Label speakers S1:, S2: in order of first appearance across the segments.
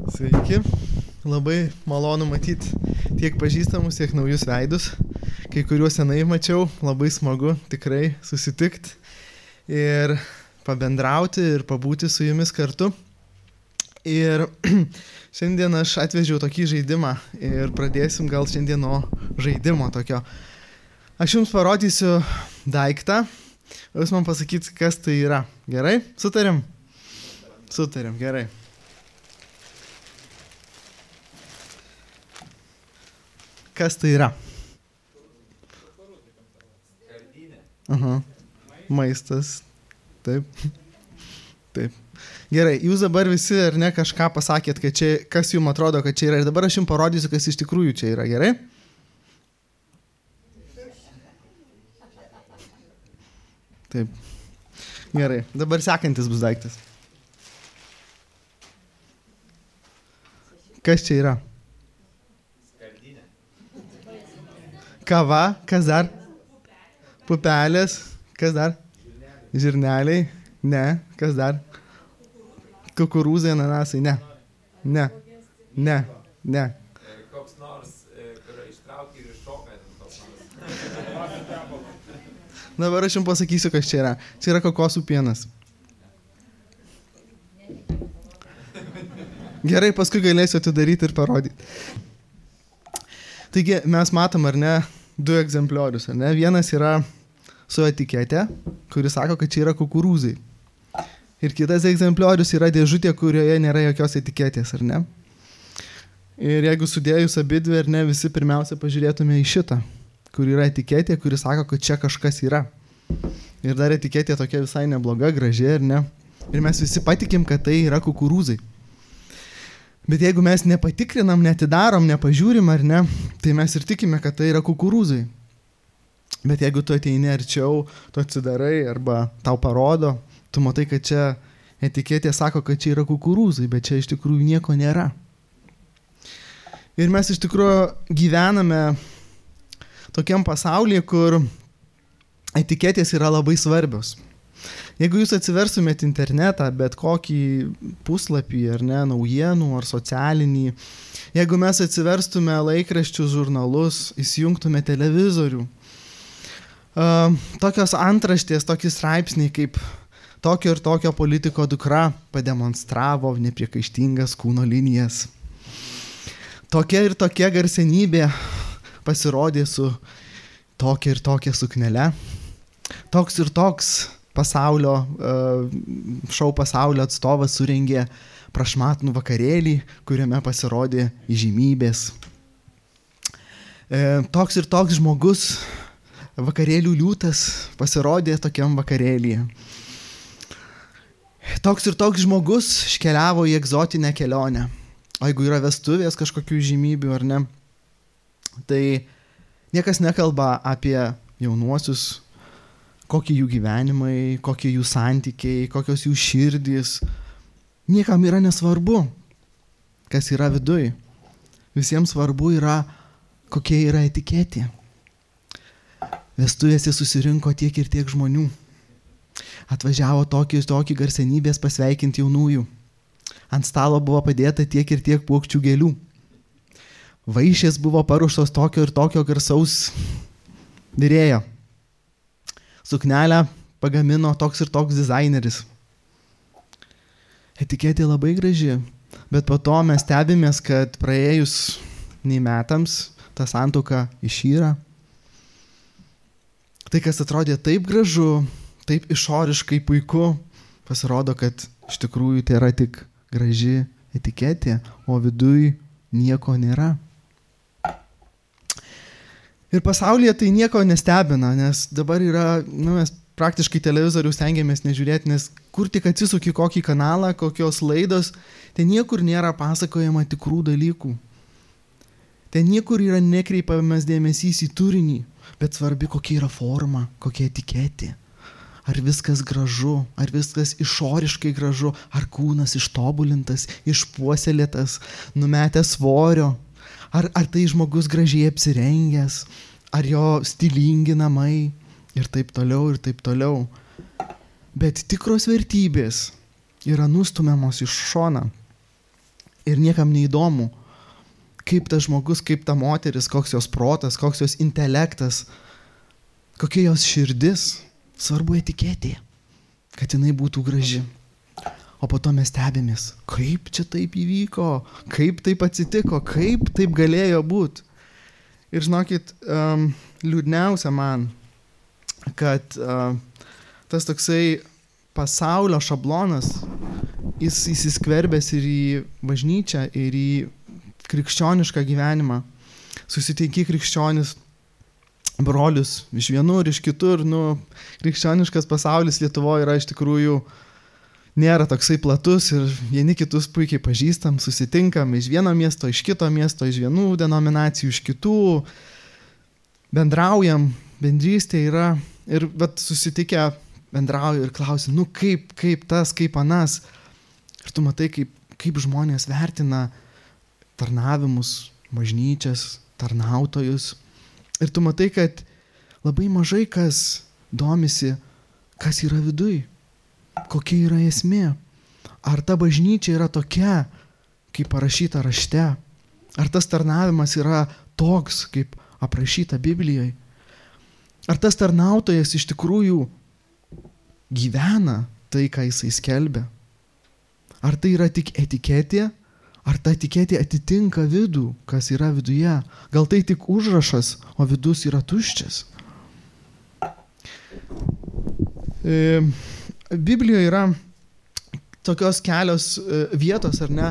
S1: Sveiki, labai malonu matyti tiek pažįstamus, tiek naujus veidus. Kai kuriuos senai mačiau, labai smagu tikrai susitikti ir pabendrauti ir pabūti su jumis kartu. Ir šiandien aš atvežiau tokį žaidimą ir pradėsim gal šiandien nuo žaidimo tokio. Aš jums parodysiu daiktą, o jūs man pasakyt, kas tai yra. Gerai? Sutarėm? Sutarėm, gerai. Kas tai yra? Aha. Maistas. Taip. Taip. Gerai, jūs dabar visi ar ne kažką pasakėt, kad čia, kas jums atrodo, kad čia yra. Ir dabar aš jums parodysiu, kas iš tikrųjų čia yra. Gerai? Taip. Gerai. Dabar sekantis bus daiktas. Kas čia yra? Kava, kas dar? Pupelės, kas dar? Žirneliai, ne, kas dar? Kukurūzai, ananasai, ne. Ne, ne, ne.
S2: Koks nors, kur ištraukia ir iššoka.
S1: Dabar aš jums pasakysiu, kas čia yra. Čia yra kokosų pienas. Gerai, paskui galėsiu atidaryti ir parodyti. Taigi mes matom, ar ne, du egzempliorius, ar ne? Vienas yra su etikete, kuris sako, kad čia yra kukurūzai. Ir kitas egzempliorius yra dėžutė, kurioje nėra jokios etiketės, ar ne? Ir jeigu sudėjus abidvi, ar ne, visi pirmiausia pažiūrėtume į šitą, kur yra etiketė, kuris sako, kad čia kažkas yra. Ir dar etiketė tokia visai nebloga, graži, ar ne? Ir mes visi patikim, kad tai yra kukurūzai. Bet jeigu mes nepatikrinam, netidarom, nepažiūrim, ar ne, tai mes ir tikime, kad tai yra kukurūzai. Bet jeigu tu ateini arčiau, tu atsidarai arba tau parodo, tu matai, kad čia etiketė sako, kad čia yra kukurūzai, bet čia iš tikrųjų nieko nėra. Ir mes iš tikrųjų gyvename tokiam pasaulyje, kur etiketės yra labai svarbios. Jeigu jūs atsiversumėt internetą, bet kokį puslapį, ar ne, naujienų, ar socialinį, jeigu mes atsiverstume laikraščius, žurnalus, įsijungtume televizorių, tokios antraštės, tokie straipsniai kaip tokio ir tokio politiko dukra pademonstravo nepriekaištingas kūno linijas. Tokia ir tokia garsenybė pasirodė su tokia ir tokia suknele. Toks ir toks šou pasaulio atstovas surengė prašmatnų vakarėlį, kuriame pasirodė įžymybės. Toks ir toks žmogus, vakarėlių liūtas, pasirodė tokiam vakarėlyje. Toks ir toks žmogus iškeliavo į egzotinę kelionę. O jeigu yra vestuvės kažkokių įžymybių ar ne, tai niekas nekalba apie jaunuosius, kokie jų gyvenimai, kokie jų santykiai, kokios jų širdys. Niekam yra nesvarbu, kas yra viduj. Visiems svarbu yra, kokie yra etiketė. Vestuvėse susirinko tiek ir tiek žmonių. Atvažiavo tokį garsenybės pasveikinti jaunųjų. Ant stalo buvo padėta tiek ir tiek puokščių gėlių. Vaišės buvo paruoštos tokio ir tokio garsaus virėjo. Suknelę pagamino toks ir toks dizaineris. Etiketė labai graži, bet po to mes stebimės, kad praėjus nei metams ta santuoka išyra. Tai, kas atrodė taip gražu, taip išoriškai puiku, pasirodo, kad iš tikrųjų tai yra tik graži etiketė, o viduj nieko nėra. Ir pasaulyje tai nieko nestebina, nes dabar yra, mes praktiškai televizorių stengiamės nežiūrėti, nes kur tik atsisuki kokį kanalą, kokios laidos, ten niekur nėra pasakojama tikrų dalykų. Ten niekur yra nekreipiamas dėmesys į turinį, bet svarbi kokia yra forma, kokia etiketė. Ar viskas gražu, ar viskas išoriškai gražu, ar kūnas ištobulintas, išpuoselėtas, numetęs svorio. Ar tai žmogus gražiai apsirengęs, ar jo stilingi namai ir taip toliau, ir taip toliau. Bet tikros vertybės yra nustumiamos iš šona. Ir niekam neįdomu, kaip tas žmogus, kaip ta moteris, koks jos protas, koks jos intelektas, kokia jos širdis. Svarbu etiketė, kad jinai būtų graži. O po to mes stebimės, kaip čia taip įvyko, kaip taip atsitiko, kaip taip galėjo būti. Ir žinokit, liūdniausia man, kad tas toksai pasaulio šablonas, jis įsiskverbęs ir į bažnyčią, ir į krikščionišką gyvenimą. Susitinki krikščionis brolius iš vienur, iš kitur. Krikščioniškas pasaulis Lietuvoje yra iš tikrųjų nėra toksai platus ir vieni kitus puikiai pažįstam, susitinkam iš vieno miesto, iš kito miesto, iš vienų denominacijų, iš kitų. Bendraujam, bendrystė yra ir susitikę bendrauju ir klausiu, kaip tas, kaip anas. Ir tu matai, kaip žmonės vertina tarnavimus, bažnyčias, tarnautojus. Ir tu matai, kad labai mažai kas domisi, kas yra viduj, kokia yra esmė. Ar ta bažnyčia yra tokia, kaip parašyta rašte? Ar tas tarnavimas yra toks, kaip aprašyta Biblijoje? Ar tas tarnautojas iš tikrųjų gyvena tai, ką jisai skelbia? Ar tai yra tik etiketė? Ar ta etiketė atitinka vidų, kas yra viduje? Gal tai tik užrašas, o vidus yra tuščias? Biblijoje yra tokios kelios vietos, ar ne,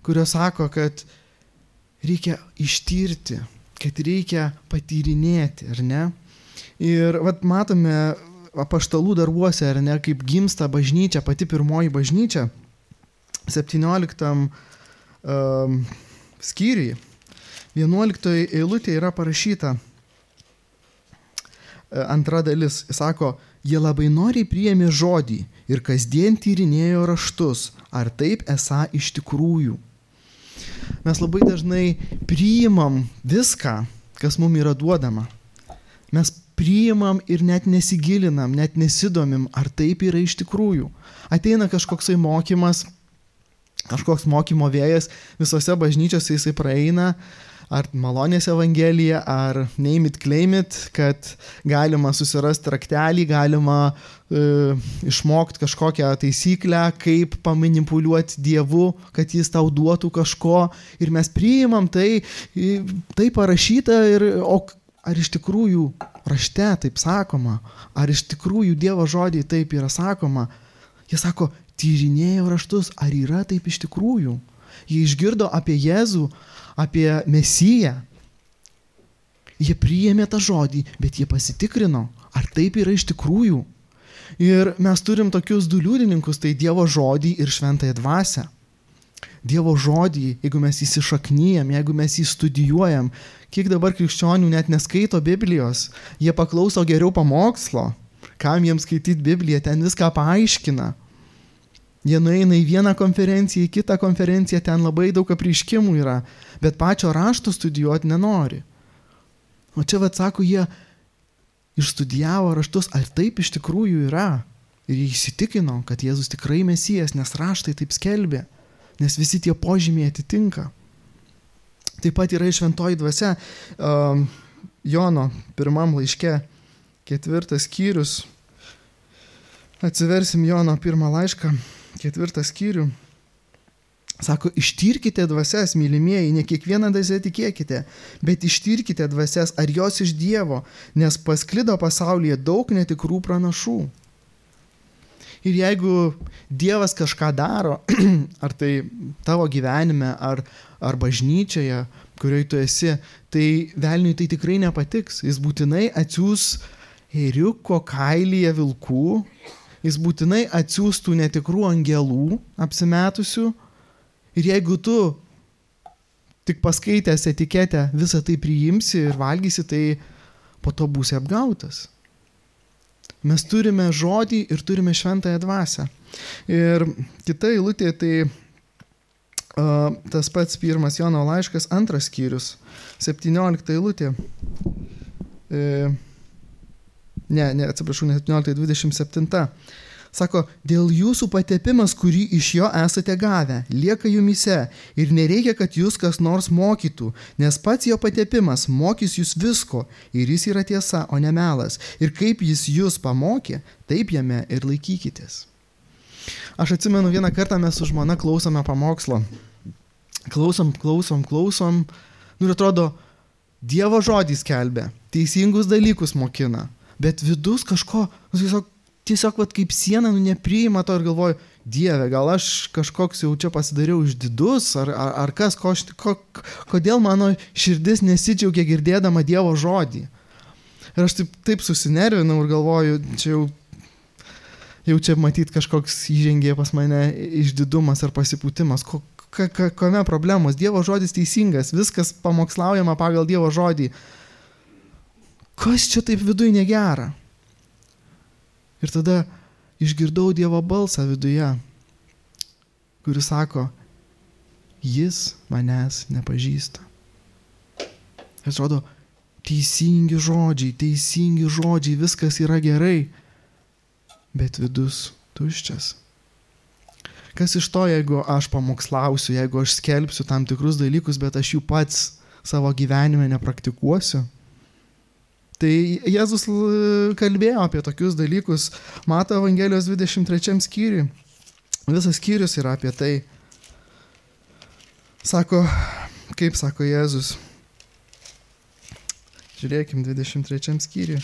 S1: kurios sako, kad reikia ištirti, kad reikia patyrinėti, ar ne? Ir matome apaštalų darbuose, ar ne, kaip gimsta bažnyčia, pati pirmoji bažnyčia, 17 skyriui, 11 eilutėje yra parašyta antra dalis. Jis sako, jie labai noriai priėmė žodį ir kasdien tyrinėjo raštus, ar taip esą iš tikrųjų. Mes labai dažnai priimam viską, kas mums yra duodama. Mes priimam ir net nesigilinam, net nesidomim, ar taip yra iš tikrųjų. Ateina kažkoksai mokymas, kažkoks mokymo vėjas, visose bažnyčiose jisai praeina, ar malonės evangelija, ar name it, claim it, kad galima susirasti raktelį, galima išmokti kažkokią taisyklę, kaip pamanipuliuoti Dievu, kad jis tau duotų kažko. Ir mes priimam tai parašyta, o ar iš tikrųjų rašte taip sakoma, ar iš tikrųjų Dievo žodį taip yra sakoma. Jie sako, tyrinėjo raštus, ar yra taip iš tikrųjų. Jie išgirdo apie Jėzų, apie Mesiją. Jie priėmė tą žodį, bet jie pasitikrino, ar taip yra iš tikrųjų. Ir mes turim tokius du liudininkus, tai Dievo žodį ir šventąją dvasią. Dievo žodį, jeigu mes įsišaknyjam, jeigu mes jį studijuojam, kiek dabar krikščionių net neskaito Biblijos, jie paklauso geriau pamokslo, kam jiems skaityti Bibliją, ten viską paaiškina. Jie nueina į vieną konferenciją, į kitą konferenciją, ten labai daug apreiškimų yra, bet pačio rašto studijuoti nenori. O čia sako, jie išstudijavo raštus, ar taip iš tikrųjų yra. Ir jie įsitikino, kad Jėzus tikrai Mesijas, nes raštai taip skelbė, nes visi tie požymiai atitinka. Taip pat yra šventoji dvasia, Jono 1 laiške, 4 skyrius. Atsiversim Jono 1 laišką, 4 skyrių. Sako, ištyrkite dvasias, mylimieji, ne kiekvieną dvasią tikėkite, bet ištyrkite dvasias, ar jos iš Dievo, nes pasklido pasaulyje daug netikrų pranašų. Ir jeigu Dievas kažką daro, ar tai tavo gyvenime, ar bažnyčioje, kurioje tu esi, tai velniui tai tikrai nepatiks. Jis būtinai atsiųs ėriuko kailyje vilkų, jis būtinai atsiųstų netikrų angelų apsimetusių. Ir jeigu tu tik paskaitęs etiketę visą tai priimsi ir valgysi, tai po to būsi apgautas. Mes turime žodį ir turime šventąją dvasią. Ir kita eilutė, tai tas pats 1 Jono laiškas, 2 skyrius, 17 eilutė. Atsiprašau, ne 17, 27. Sako, dėl jūsų patepimas, kurį iš jo esate gavę, lieka jumise ir nereikia, kad jūs kas nors mokytų, nes pats jo patepimas mokys jūs visko ir jis yra tiesa, o ne melas. Ir kaip jis jūs pamokė, taip jame ir laikykitės. Aš atsimenu, vieną kartą mes su žmona klausome pamokslo. Klausom. Ir atrodo, Dievo žodis skelbia, teisingus dalykus mokina, bet vidus kažko, tiesiog kaip siena, nepriima to ir galvoju, Dieve, gal aš kažkoks jau čia pasidariau išdidus, ar kas, kodėl mano širdis nesidžiaugia girdėdama Dievo žodį. Ir aš taip susinervinau ir galvoju, jau čia matyt kažkoks įžengė pas mane išdidumas ar pasipūtimas. Kame problemos? Dievo žodis teisingas, viskas pamokslaujama pagal Dievo žodį. Kas čia taip viduj negera? Ir tada išgirdau Dievo balsą viduje, kuris sako, jis manęs nepažįsta. Ir atrodo, teisingi žodžiai, viskas yra gerai, bet vidus tuščias. Kas iš to, jeigu aš pamokslausiu, jeigu aš skelbsiu tam tikrus dalykus, bet aš jų pats savo gyvenime nepraktikuosiu? Tai Jėzus kalbėjo apie tokius dalykus Mato Evangelijos 23 skyriui. Visas skyrius yra apie tai. Sako Jėzus. Žiūrėkim 23 skyriui.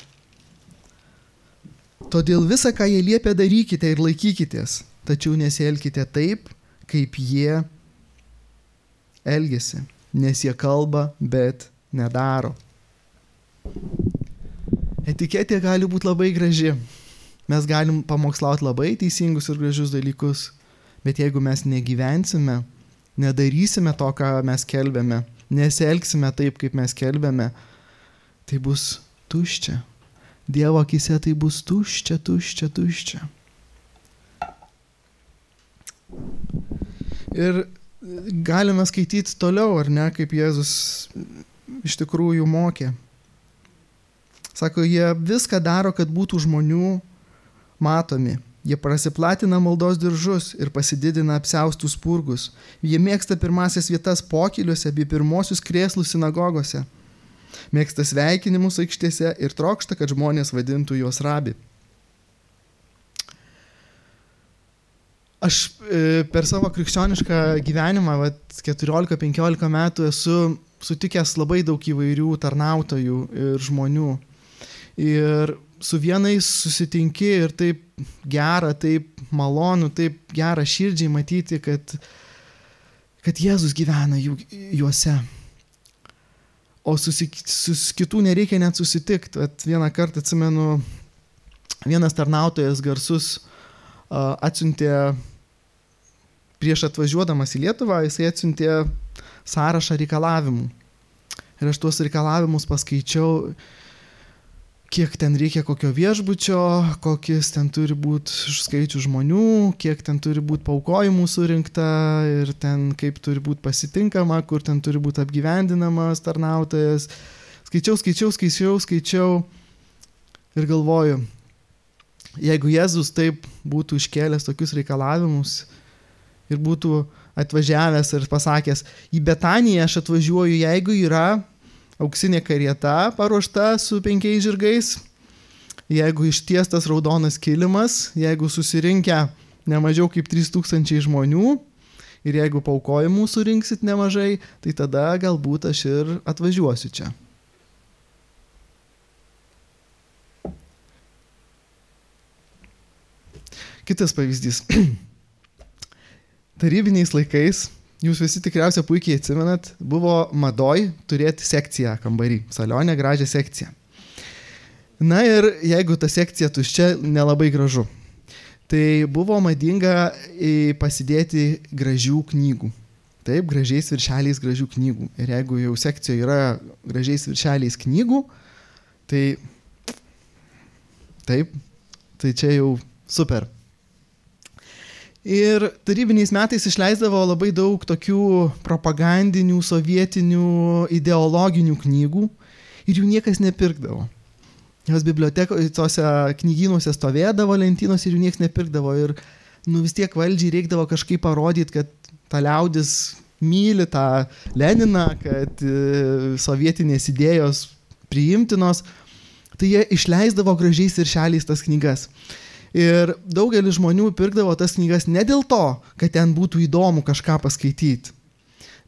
S1: Todėl visą, ką jie liepia, darykite ir laikykitės, tačiau nesielkite taip, kaip jie elgiasi, nes jie kalba, bet nedaro. Etiketė gali būti labai graži. Mes galim pamokslauti labai teisingus ir gražius dalykus, bet jeigu mes negyvensime, nedarysime to, ką mes kelbėme, nesielgsime taip, kaip mes kelbėme, tai bus tuščia. Dievo akise tai bus tuščia. Ir galime skaityti toliau, ar ne, kaip Jėzus iš tikrųjų mokė. Sako, jie viską daro, kad būtų žmonių matomi. Jie prasiplatina maldos diržus ir pasididina apsiaustus spurgus. Jie mėgsta pirmasias vietas pokyliuose bei pirmosius krėslus sinagogose. Mėgsta sveikinimus aikštėse ir trokšta, kad žmonės vadintų juos rabi. Aš per savo krikščionišką gyvenimą, 14-15 metų, esu sutikęs labai daug įvairių tarnautojų ir žmonių. Ir su vienais susitinki ir taip gera, taip malonu, taip gera širdžiai matyti, kad Jėzus gyvena juose. O su kitų nereikia net susitikti. Vieną kartą atsimenu, vienas tarnautojas garsus atsiuntė, prieš atvažiuodamas į Lietuvą, jisai atsiuntė sąrašą reikalavimų. Ir aš tuos reikalavimus paskaičiau, kiek ten reikia kokio viešbučio, kokis ten turi būti skaičių žmonių, kiek ten turi būti paaukojimų surinkta ir ten kaip turi būti pasitinkama, kur ten turi būti apgyvendinamas tarnautojas. Skaičiau ir galvoju, jeigu Jėzus taip būtų iškėlęs tokius reikalavimus ir būtų atvažiavęs ir pasakęs, į Betaniją aš atvažiuoju, jeigu yra auksinė karieta paruošta su 5 žirgais, jeigu ištiestas raudonas kilimas, jeigu susirinkę ne mažiau kaip 3000 žmonių ir jeigu paaukojimų surinksit nemažai, tai tada galbūt aš ir atvažiuosiu čia. Kitas pavyzdys. Tarybiniais laikais, jūs visi tikriausiai puikiai atsimenat, buvo madoj turėti sekciją kambarį, salionę gražią sekciją. Na ir jeigu ta sekcija tuščia, nelabai gražu. Tai buvo madinga pasidėti gražių knygų. Taip, gražiais viršeliais gražių knygų. Ir jeigu jau sekcijoje yra gražiais viršeliais knygų, tai čia jau super. Ir tarybiniais metais išleisdavo labai daug tokių propagandinių, sovietinių, ideologinių knygų ir jų niekas nepirkdavo. Jos bibliotekoje, tose knygynuose stovėdavo lentynos ir jų niekas nepirkdavo. Ir vis tiek valdžiai reikdavo kažkaip parodyti, kad ta liaudis myli tą Leniną, kad sovietinės idėjos priimtinos. Tai jie išleisdavo gražiais viršeliais tas knygas. Ir daugelis žmonių pirkdavo tas knygas ne dėl to, kad ten būtų įdomu kažką paskaityti,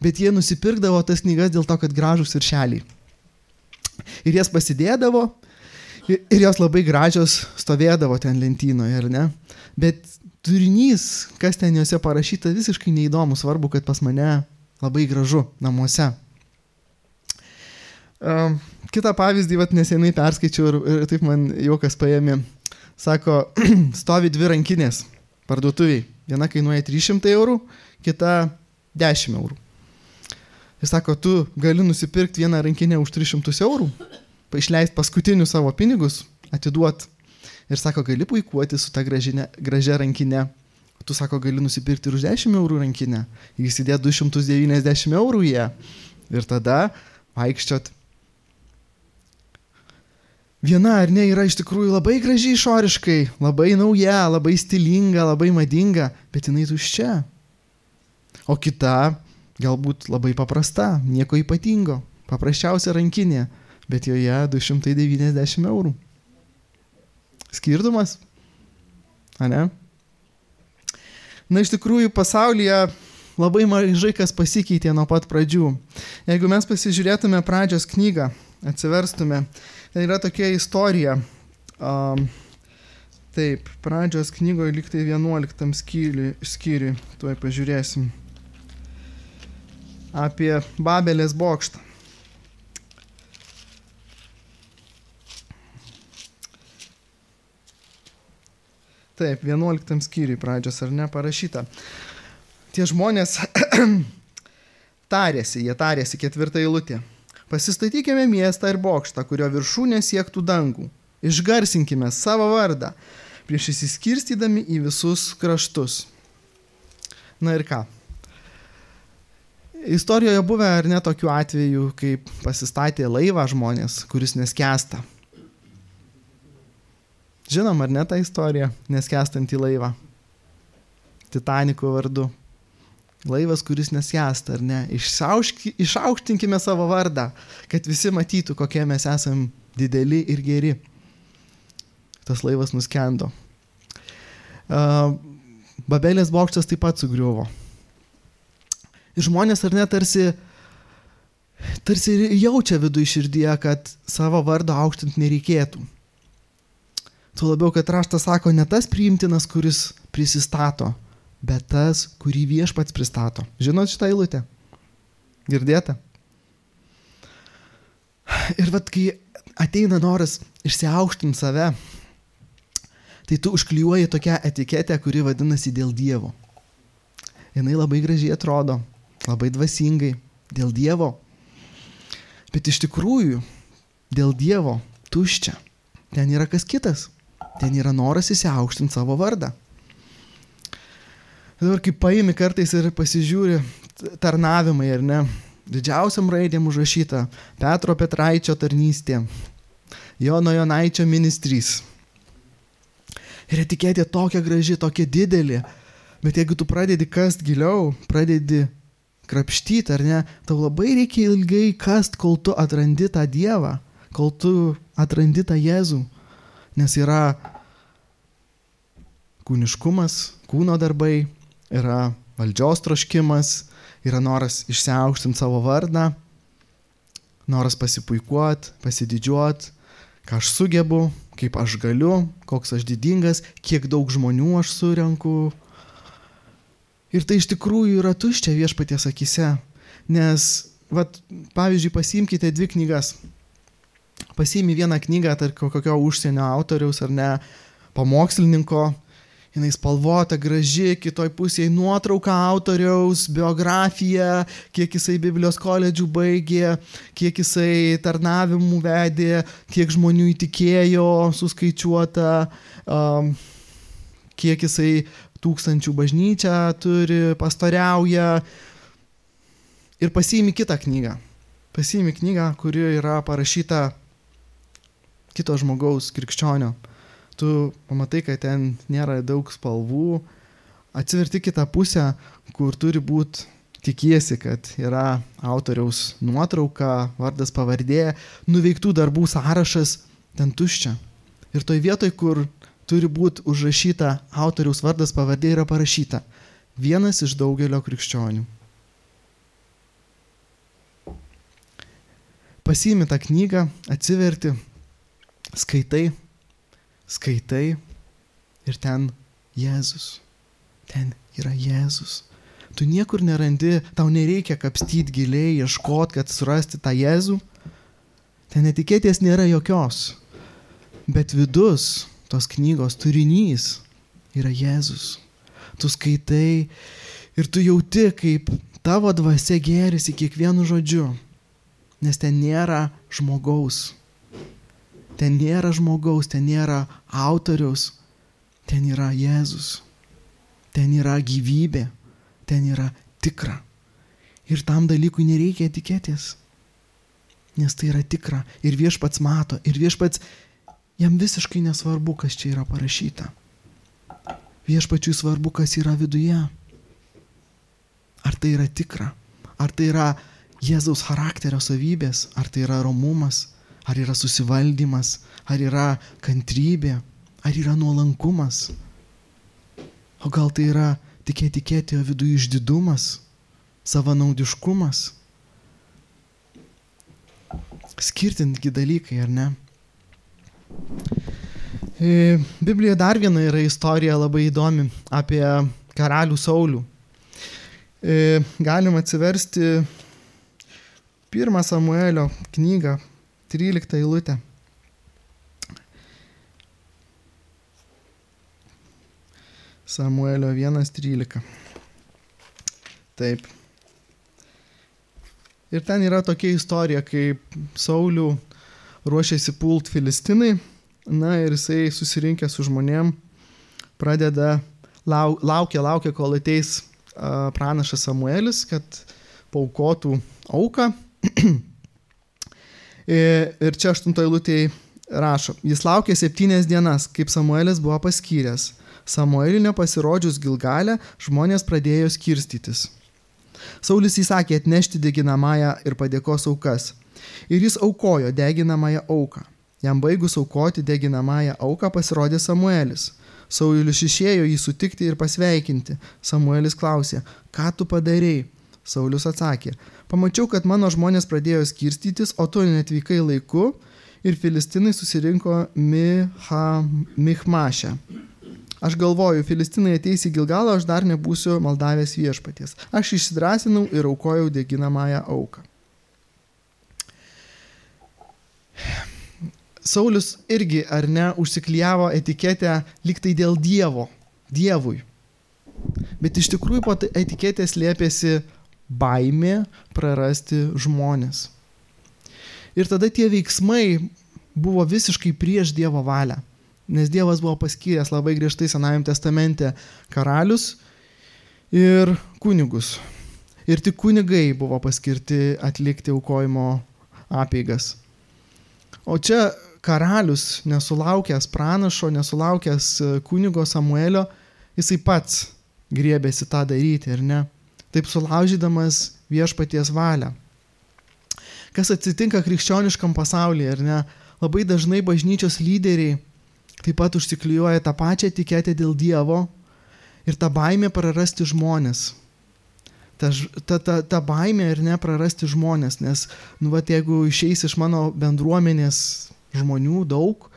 S1: bet jie nusipirkdavo tas knygas dėl to, kad gražus viršeliai. Ir jas pasidėdavo ir jos labai gražios stovėdavo ten lentynoje, ar ne? Bet turinys, kas ten juose parašyta, visiškai neįdomu, svarbu, kad pas mane labai gražu namuose. Kitą pavyzdį nesenai perskaičiau ir taip man juokas paėmė. Sako, stovi 2 rankinės parduotuviai. Viena kainuoja 300 eurų, kita 10 eurų. Jis sako, tu gali nusipirkti vieną rankinę už 300 eurų, išleisti paskutinius savo pinigus, atiduot. Ir sako, gali puikuoti su ta gražia rankinė. Tu sako, gali nusipirkti ir už 10 eurų rankinę. Įsidėt 290 eurų jie. Ir tada vaikščiot. Viena ar ne yra iš tikrųjų labai graži išoriškai, labai nauja, labai stilinga, labai madinga, bet jinai tuščia. O kita galbūt labai paprasta, nieko ypatingo, paprasčiausia rankinė, bet joje 290 eurų. Skirtumas? A ne? Na, iš tikrųjų, pasaulyje labai mažai kas pasikeitė nuo pat pradžių. Jeigu mes pasižiūrėtume pradžios knygą, atsiverstume, ten yra tokia istorija. Taip, pradžios knygoje lyg tai 11 skyriui, tuoj pažiūrėsim. Apie Babelės bokštą. Taip, 11 skyriui pradžios, ar ne, parašyta. Tie žmonės jie tarėsi 4 eilutė. Pasistatykime miestą ir bokštą, kurio viršūnė siektų dangų. Išgarsinkime savo vardą, prieš įsiskirstydami į visus kraštus. Na ir ką? Istorijoje buvę ar ne tokių atvejų, kaip pasistatė laivą žmonės, kuris neskęsta. Žinom, ar ne tą istoriją, neskęstantį laivą? Titaniko vardu. Laivas, kuris neskęsta, ar ne? Išaukštinkime savo vardą, kad visi matytų, kokie mes esam dideli ir geri. Tas laivas nuskendo. Babelės bokštas taip pat sugriuvo. Ir žmonės, ar ne, tarsi jaučia viduje širdyje, kad savo vardo aukštinti nereikėtų. Tuo labiau, kad raštas sako, ne tas priimtinas, kuris prisistato, bet tas, kurį viešpats pristato. Žinot šitą eilutę? Girdėta? Ir kai ateina noras išsiaukštinti save, tai tu užklijuoji tokią etiketę, kuri vadinasi dėl Dievo. Jinai labai gražiai atrodo, labai dvasingai, dėl Dievo. Bet iš tikrųjų, dėl Dievo tuščia. Ten yra kas kitas. Ten yra noras įsiaukštinti savo vardą. Dabar kaip paimi kartais ir pasižiūri tarnavimai, ar ne, didžiausiam raidėm užrašyta Petro Petraičio tarnystė, Jono Jonaičio ministrys. Ir etiketė tokia graži, tokia didelė, bet jeigu tu pradedi kast giliau, pradedi krapštyti, ar ne, tau labai reikia ilgai kast, kol tu atrandi tą Dievą, kol tu atrandi tą Jėzų. Nes yra kūniškumas, kūno darbai, yra valdžios troškimas, yra noras išsiaukštinti savo vardą, noras pasipuikuoti, pasididžiuoti, ką aš sugebu, kaip aš galiu, koks aš didingas, kiek daug žmonių aš surenku. Ir tai iš tikrųjų yra tuščia viešpaties akyse, nes, pavyzdžiui, pasiimkite 2 knygas. Pasiimi vieną knygą, tarp kokio užsienio autoriaus ar ne, pamokslininko, jinai spalvota, graži, kitoj pusėje nuotrauka autoriaus, biografija, kiek jisai Biblijos koledžių baigė, kiek jisai tarnavimų vedė, kiek žmonių įtikėjo, suskaičiuota, kiek jisai 1000 bažnyčią turi, pastoriauja. Ir pasiimi kitą knygą. Pasiimi knygą, kuri yra parašyta kito žmogaus, krikščionio. Tu pamatai, kad ten nėra daug spalvų, atsiverti kitą pusę, kur turi būti, tikiesi, kad yra autoriaus nuotrauka, vardas, pavardė, nuveiktų darbų sąrašas, ten tuščia. Ir toj vietoj, kur turi būti užrašyta autoriaus vardas, pavardė, yra parašyta vienas iš daugelio krikščionių. Pasiimi tą knygą, atsiverti, skaitai ir ten Jėzus. Ten yra Jėzus. Tu niekur nerandi, tau nereikia kapstyti giliai, ieškoti, kad surasti tą Jėzų. Ten etiketės nėra jokios. Bet vidus tos knygos turinys yra Jėzus. Tu skaitai ir tu jauti, kaip tavo dvasia gėrisi kiekvienu žodžiu. Nes ten nėra žmogaus. Ten nėra žmogaus, ten nėra autoriaus. Ten yra Jėzus. Ten yra gyvybė. Ten yra tikra. Ir tam dalykui nereikia etiketės. Nes tai yra tikra. Ir Viešpats mato. Ir Viešpats, jam visiškai nesvarbu, kas čia yra parašyta. Viešpačiui svarbu, kas yra viduje. Ar tai yra tikra? Ar tai yra Jėzaus charakterio savybės? Ar tai yra romumas? Ar yra susivaldymas? Ar yra kantrybė? Ar yra nuolankumas? O gal tai yra tik etiketė, o viduje išdidumas, savanaudiškumas? Skirtingi dalykai, ar ne? Biblijoje dar viena yra istorija labai įdomi apie karalių Saulių. Galim atsiversti 1 Samuelio knygą, 13 eilutę. Samuelio 1:13. Taip. Ir ten yra tokia istorija, kaip Saulių ruošiasi pult Filistinai, na ir jisai susirinkė su žmonėm, pradeda, laukia, kol ateis pranašas Samuelis, kad paaukotų auką. Ir čia 8 eilutėje rašo, jis laukė 7 dienas, kaip Samuelis buvo paskyręs. Samueliui nepasirodžius Gilgale, žmonės pradėjo skirstytis. Saulis įsakė atnešti deginamąją ir padėkos aukas. Ir jis aukojo deginamąją auką. Jam baigus aukoti deginamąją auką pasirodė Samuelis. Saulius išėjo jį sutikti ir pasveikinti. Samuelis klausė, ką tu padarei? Saulius atsakė, pamačiau, kad mano žmonės pradėjo skirstytis, o tu netvykai laiku ir Filistinai susirinko Michmaše. Aš galvoju, Filistinai ateis į Gilgalą, aš dar nebūsiu maldavęs Viešpaties. Aš išsidrasinau ir aukojau deginamąją auką. Saulius irgi, ar ne, užsiklijavo etiketę lyg tai dėl Dievui. Bet iš tikrųjų po etiketės slėpėsi baimė prarasti žmonės. Ir tada tie veiksmai buvo visiškai prieš Dievo valią. Nes Dievas buvo paskyręs labai griežtai Senajame testamente karalius ir kunigus. Ir tik kunigai buvo paskirti atlikti aukojimo apeigas. O čia karalius, nesulaukęs pranašo, nesulaukęs kunigo Samuelio, jisai pats griebėsi tą daryti, ar ne? Taip sulaužydamas Viešpaties valią. Kas atsitinka krikščioniškam pasaulyje, ar ne? Labai dažnai bažnyčios lyderiai taip pat užsiklijuoja tą pačią etiketę dėl Dievo ir tą baimę prarasti žmonės. Ta baimė ir ne prarasti žmonės, nes jeigu išeis iš mano bendruomenės žmonių daug,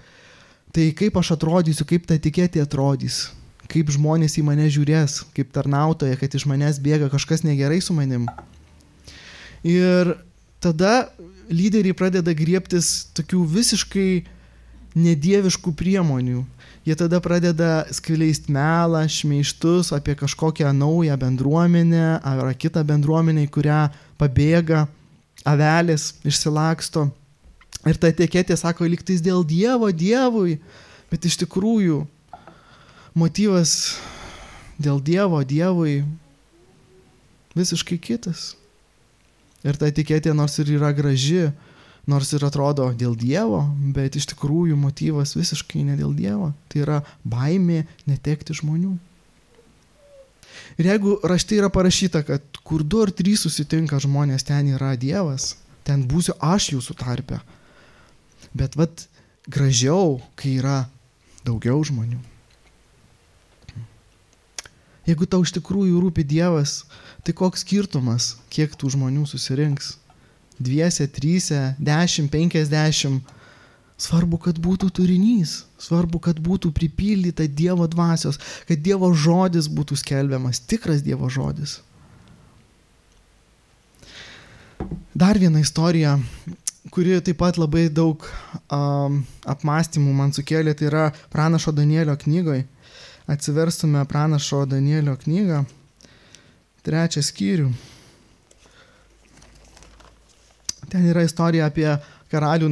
S1: tai kaip aš atrodysiu, kaip ta etiketė atrodys, kaip žmonės į mane žiūrės, kaip tarnautoja, kad iš manęs bėga kažkas negerai su manim. Ir tada lyderiai pradeda griebtis tokių visiškai nedieviškų priemonių. Jie tada pradeda skleisti melą, šmeižtus apie kažkokią naują bendruomenę ar kitą bendruomenę, į kurią pabėga avelės, išsilaksto. Ir ta etiketė sako, lyg tais dėl Dievui, bet iš tikrųjų motyvas dėl Dievui visiškai kitas. Ir ta etiketė nors ir yra graži, nors ir atrodo dėl Dievo, bet iš tikrųjų motyvas visiškai ne dėl Dievo. Tai yra baimė netekti žmonių. Ir jeigu rašte yra parašyta, kad kur 2 ar 3 susitinka žmonės, ten yra Dievas, ten būsiu aš jūsų tarpe. Bet gražiau, kai yra daugiau žmonių. Jeigu tau iš tikrųjų rūpi Dievas, tai koks skirtumas, kiek tų žmonių susirinks? 2, 3, 10, 50. Svarbu, kad būtų turinys. Svarbu, kad būtų pripildyta Dievo dvasios, kad Dievo žodis būtų skelbiamas, tikras Dievo žodis. Dar viena istorija, kuri taip pat labai daug apmąstymų man sukėlė, tai yra Pranašo Danielio knygoje. Atsiverstume Pranašo Danielio knygą, 3 skyrių. Ten yra istorija apie karalių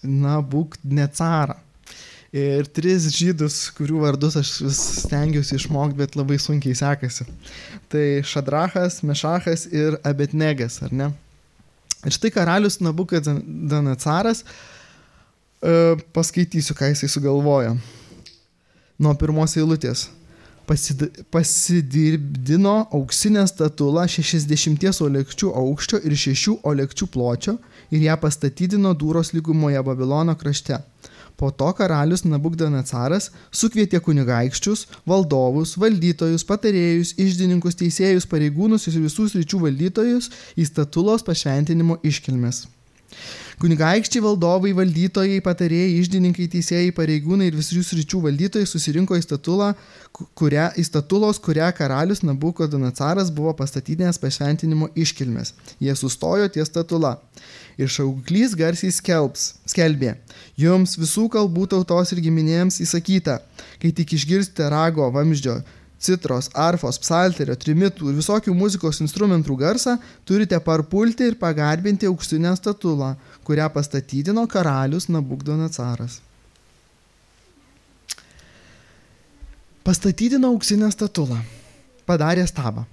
S1: Nabukadnecarą. Ir 3 žydus, kurių vardus aš vis stengiuosi išmokti, bet labai sunkiai sekasi. Tai Šadrachas, Mešachas ir Abednegas, ar ne? Ir štai karalius Nabukadnecaras, paskaitysiu, ką jisai sugalvojo. Nuo 1 eilutės. Pasidirbdino auksinę statulą 60 olekčių aukščio ir 6 olekčių pločio ir ją pastatydino Dūros lygumoje Babilono krašte. Po to karalius Nabukadnecaras sukvietė kunigaikščius, valdovus, valdytojus, patarėjus, iždininkus, teisėjus, pareigūnus ir visų sričių valdytojus į statulos pašventinimo iškilmes. Kunigaikščiai, valdovai, valdytojai, patarėjai, iždininkai, teisėjai, pareigūnai ir visų sričių valdytojai susirinko į statulos, kurią karalius Nabukadnecaras buvo pastatydinęs pašventinimo iškilmes. Jie sustojo ties statula. Ir šauklys garsiai skelbė: jums visų kalbų tautos ir giminėms įsakyta, kai tik išgirsite rago, vamzdžio, citros, arfos, psalterio, trimitų ir visokių muzikos instrumentų garsą, turite parpulti ir pagarbinti auksinę statulą, kurią pastatydino karalius Nabukadnecaras. Pastatydino auksinę statulą, padarė stabą.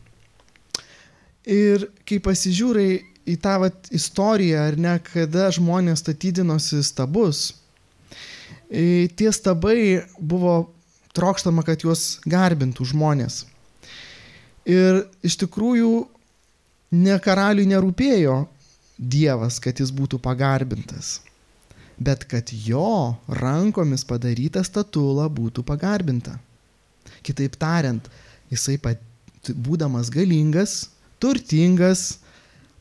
S1: Ir kai pasižiūrai į tą istoriją, ar ne, kada žmonės statydinosi stabus, tie stabai buvo trokštama, kad juos garbintų žmonės. Ir iš tikrųjų ne karaliui nerūpėjo Dievas, kad jis būtų pagarbintas, bet kad jo rankomis padaryta statula būtų pagarbinta. Kitaip tariant, jisai būdamas galingas, turtingas,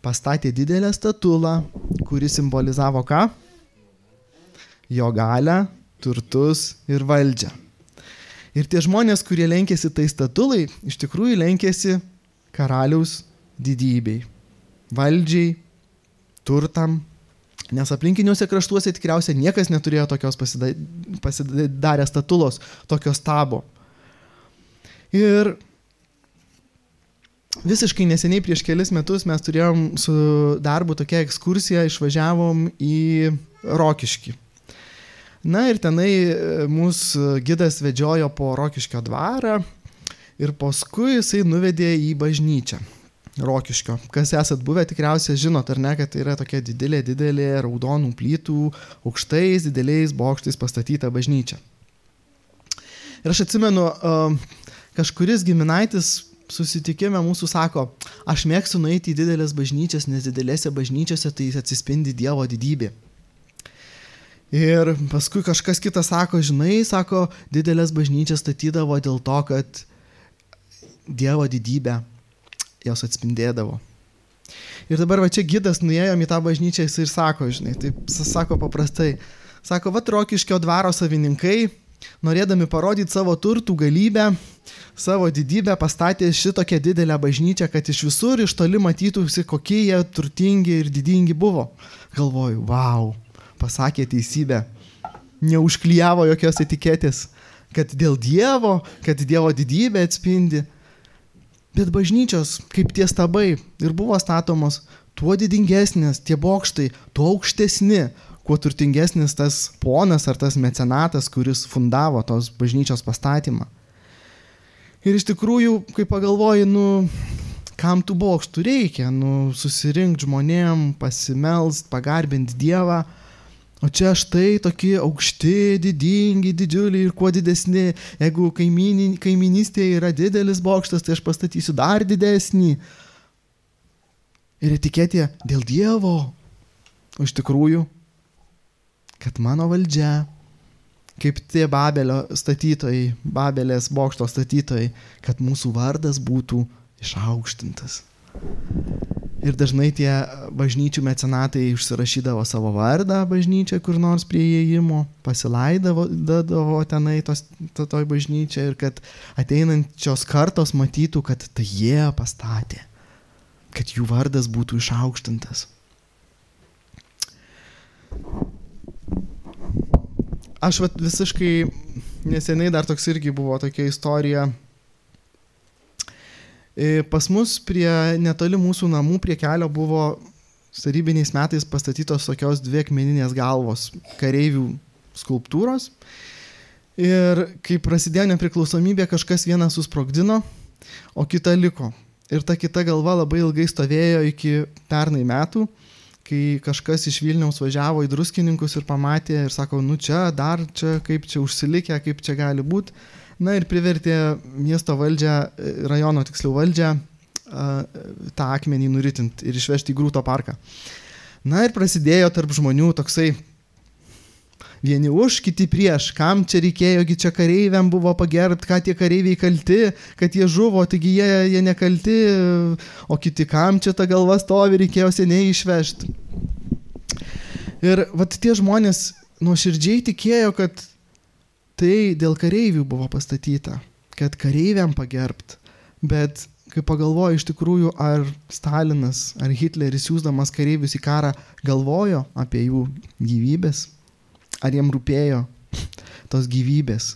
S1: pastatė didelę statulą, kuri simbolizavo ką? Jo galią, turtus ir valdžią. Ir tie žmonės, kurie lenkėsi tai statulai, iš tikrųjų lenkėsi karaliaus didybei, valdžiai, turtam, nes aplinkiniuose kraštuose tikriausiai niekas neturėjo tokios pasidarę statulos, tokios stabo. Ir visiškai neseniai prieš kelis metus mes turėjom su darbu tokią ekskursiją, išvažiavom į Rokiškį. Na ir tenai mūsų gidas vedžiojo po Rokiškio dvarą ir paskui jisai nuvedė į bažnyčią Rokiškio. Kas esat buvę, tikriausiai žinot, ar ne, kad tai yra tokia didelė raudonų plytų, aukštais, dideliais bokštais pastatyta bažnyčia. Ir aš atsimenu, kažkuris giminaitis susitikime mūsų sako: aš mėgstu nueiti į didelės bažnyčias, nes didelėse bažnyčiose tai atsispindi Dievo didybė. Ir paskui kažkas kitas sako: žinai, sako, didelės bažnyčias statydavo dėl to, kad Dievo didybę jos atspindėdavo. Ir dabar čia gidas nuėjom į tą bažnyčią ir sako, žinai, taip sako paprastai, sako, Rokiškio dvaro savininkai, norėdami parodyti savo turtų galybę, savo didybę, pastatė šitokią didelę bažnyčią, kad iš visur iš toli matytųsi, kokie jie turtingi ir didingi buvo. Galvoju, vau, pasakė teisybę, neužklijavo jokios etiketės, kad dėl Dievo, kad Dievo didybė atspindi. Bet bažnyčios, kaip tie stabai, ir buvo statomos, tuo didingesnės tie bokštai, tuo aukštesni, kuo turtingesnis tas ponas ar tas mecenatas, kuris fundavo tos bažnyčios pastatymą. Ir iš tikrųjų, kai pagalvoji, kam tų bokštų reikia? Nu, susirinkti žmonėm, pasimelst, pagarbinti Dievą. O čia štai tokie aukšti, didingi, didžiuliai ir kuo didesni. Jeigu kaiminystėje yra didelis bokštas, tai aš pastatysiu dar didesnį. Ir etiketė dėl Dievo. O iš tikrųjų, kad mano valdžia, kaip tie Babelio statytojai, Babelės bokšto statytojai, kad mūsų vardas būtų išaukštintas. Ir dažnai tie bažnyčių mecenatai užsirašydavo savo vardą bažnyčią kur nors prie įėjimo, pasilaidavo tenai toj bažnyčią ir kad ateinančios kartos matytų, kad tai jie pastatė, kad jų vardas būtų išaukštintas. Aš visiškai neseniai dar toks irgi buvo tokia istorija. Pas mus netoli mūsų namų prie kelio buvo tarybiniais metais pastatytos tokios 2 akmeninės galvos kareivių skulptūros. Ir kai prasidėjo nepriklausomybė, kažkas vieną susprogdino, o kita liko. Ir ta kita galva labai ilgai stovėjo iki pernai metų, kai kažkas iš Vilniaus važiavo į Druskininkus ir pamatė ir sako, nu čia, kaip čia užsilikę, kaip čia gali būti. Na ir privertė miesto valdžią, rajono tiksliau valdžią, tą akmenį nuritinti ir išvežti į Grūto parką. Na ir prasidėjo tarp žmonių toksai vieni už, kiti prieš. Kam čia reikėjogi, čia kareiviam buvo pagerbti, ką tie kareiviai kalti, kad jie žuvo, taigi jie nekalti, o kiti kam čia ta galva stovi, reikėjo seniai išvežti. Ir vat tie žmonės nuoširdžiai tikėjo, kad tai dėl kareivių buvo pastatyta, kad kareiviam pagerbt. Bet kai pagalvoju iš tikrųjų, ar Stalinas, ar Hitleris siųsdamas kareivius į karą galvojo apie jų gyvybės, ar jiem rūpėjo tos gyvybės.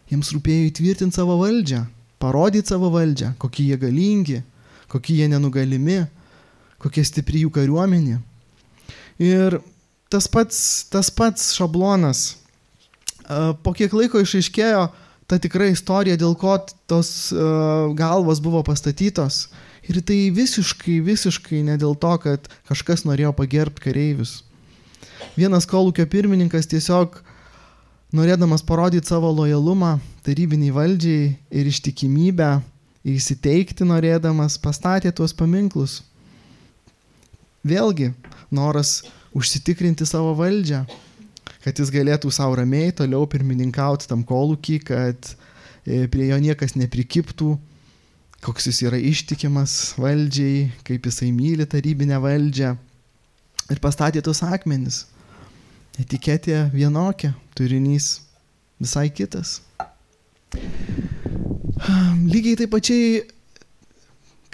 S1: Jiems rūpėjo įtvirtinti savo valdžią, parodyti savo valdžią, kokie jie galingi, kokie jie nenugalimi, kokie stipri jų kariuomenė. Ir tas pats šablonas. Po kiek laiko išaiškėjo ta tikra istorija, dėl ko tos galvos buvo pastatytos. Ir tai visiškai ne dėl to, kad kažkas norėjo pagerbti kareivius. Vienas kolūkio pirmininkas tiesiog, norėdamas parodyti savo lojalumą tarybiniai valdžiai ir ištikimybę, įsiteikti norėdamas, pastatė tuos paminklus. Vėlgi, noras užsitikrinti savo valdžią, kad jis galėtų savo ramiai toliau pirmininkauti tam kolūkį, kad prie jo niekas neprikiptų, koks jis yra ištikimas valdžiai, kaip jisai myli tarybinę valdžią. Ir pastatė tos akmenis. Etiketė vienokia, turinys visai kitas. Lygiai taip pačiai,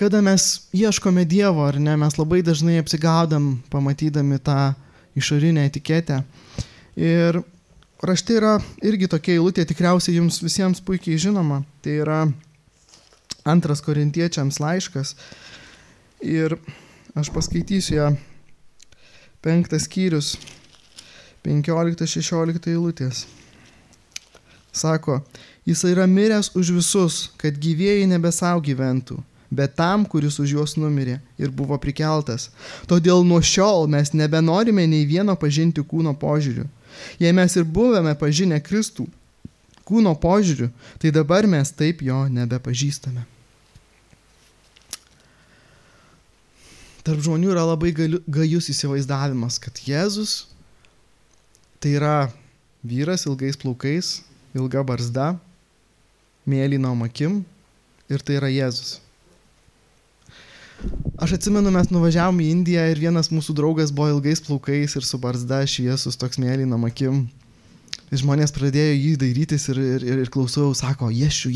S1: kada mes ieškome Dievo, ar ne, mes labai dažnai apsigaudam, pamatydami tą išorinę etiketę. Ir rašte yra irgi tokia eilutė, tikriausiai jums visiems puikiai žinoma. Tai yra 2 Korintiečiams laiškas. Ir aš paskaitysiu ją 5 skyrius, 15-16 eilutės. Sako, jis yra miręs už visus, kad gyvieji nebe savo gyventų, bet tam, kuris už juos numirė ir buvo prikeltas. Todėl nuo šiol mes nebenorime nei vieno pažinti kūno požiūriu. Jei mes ir buvome pažinę Kristų kūno požiūriu, tai dabar mes taip jo nebepažįstame. Tarp žmonių yra labai gajus įsivaizdavimas, kad Jėzus tai yra vyras ilgais plaukais, ilga barzda, mėlynom akim ir tai yra Jėzus. Aš atsimenu, mes nuvažiavom į Indiją ir vienas mūsų draugas buvo ilgais plaukais ir su barzda šviesus toks mėlynom akim. Ir žmonės pradėjo jį dairytis ir klausau, sako, Jėšiu.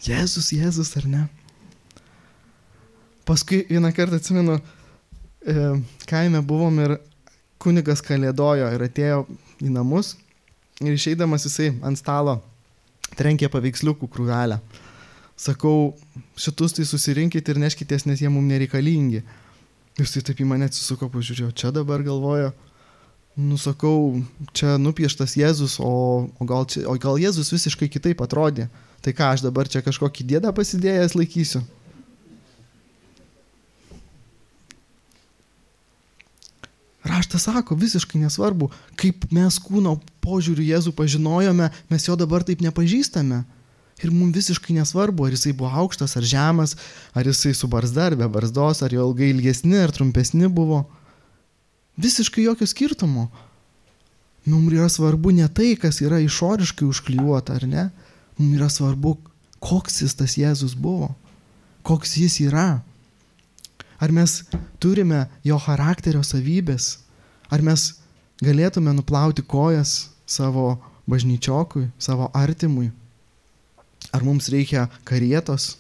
S1: Jėzus, ar ne? Paskui vieną kartą atsimenu, kaime buvom ir kunigas kalėdojo ir atėjo į namus ir išeidamas jisai ant stalo trenkė paveiksliukų krūvelę. Sakau, šitus tai susirinkit ir neškitės, nes jie mums nereikalingi. Jisai taip į mane atsisuko, pažiūrėjau, čia dabar galvojo, sakau, čia nupieštas Jėzus, o gal Jėzus visiškai kitaip atrodė. Tai ką, aš dabar čia kažkokį dėdą pasidėjęs laikysiu? Raštas sako, visiškai nesvarbu, kaip mes kūno požiūriu Jėzų pažinojome, mes jo dabar taip nepažįstame. Ir mums visiškai nesvarbu, ar jisai buvo aukštas, ar žemas, ar jisai su barzda, ar be barzdos, ar jo ilgai ilgesni, ar trumpesni buvo. Visiškai jokio skirtumo. Mums yra svarbu ne tai, kas yra išoriškai užklijuota, ar ne? Mums yra svarbu, koks jis tas Jėzus buvo, koks jis yra. Ar mes turime jo charakterio savybės? Ar mes galėtume nuplauti kojas savo bažnyčiokui, savo artimui? Ar mums reikia karietos,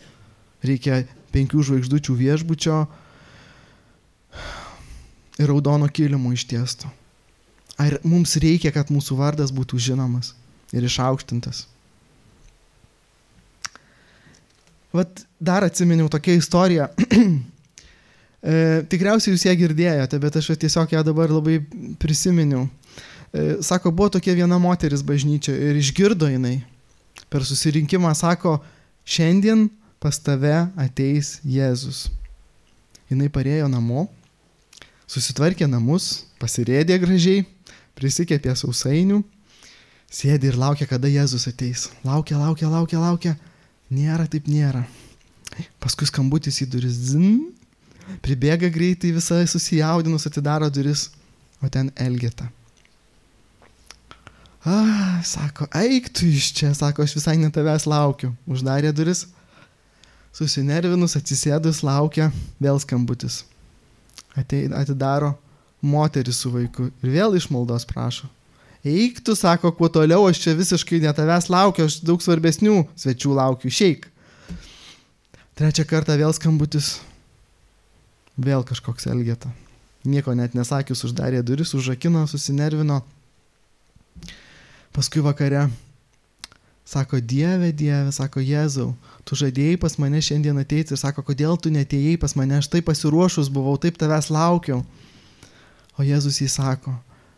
S1: reikia 5 žvaigždučių viešbučio ir raudono kilimo ištiesto? Ar mums reikia, kad mūsų vardas būtų žinomas ir išaukštintas? Vat dar atsiminiau tokią istoriją. Tikriausiai jūs ją girdėjote, bet aš tiesiog ją dabar labai prisiminiau. Sako, buvo tokia viena moteris bažnyčioje ir išgirdo jinai. Per susirinkimą sako, šiandien pas tave ateis Jėzus. Jinai parėjo namo, susitvarkė namus, pasirėdė gražiai, prisikepė sausainių, sėdė ir laukia, kada Jėzus ateis. Laukia. Nėra, taip nėra. Paskui skambutis į duris, pribėga greitai, visai susijaudinus, atidaro duris, o ten Elgeta. Sako, eik tu iš čia, sako, aš visai ne tavęs laukiu. Uždarė duris, susinervinus, atsisėdus, laukia, vėl skambutis. Atidaro moteris su vaiku ir vėl iš maldos prašo. Eik tu, sako, kuo toliau, aš čia visiškai ne tavęs laukiu, aš daug svarbesnių svečių laukiu, išeik. Trečią kartą vėl skambutis, vėl kažkoks Elgeta. Nieko net nesakius, uždarė duris, užrakino, susinervino. Paskui vakare sako, Dieve, sako, Jėzau, tu žadėjai pas mane šiandien ateiti ir sako, kodėl tu neatėjai pas mane, aš taip pasiruošus buvau, taip tavęs laukiau. O Jėzus jį sako,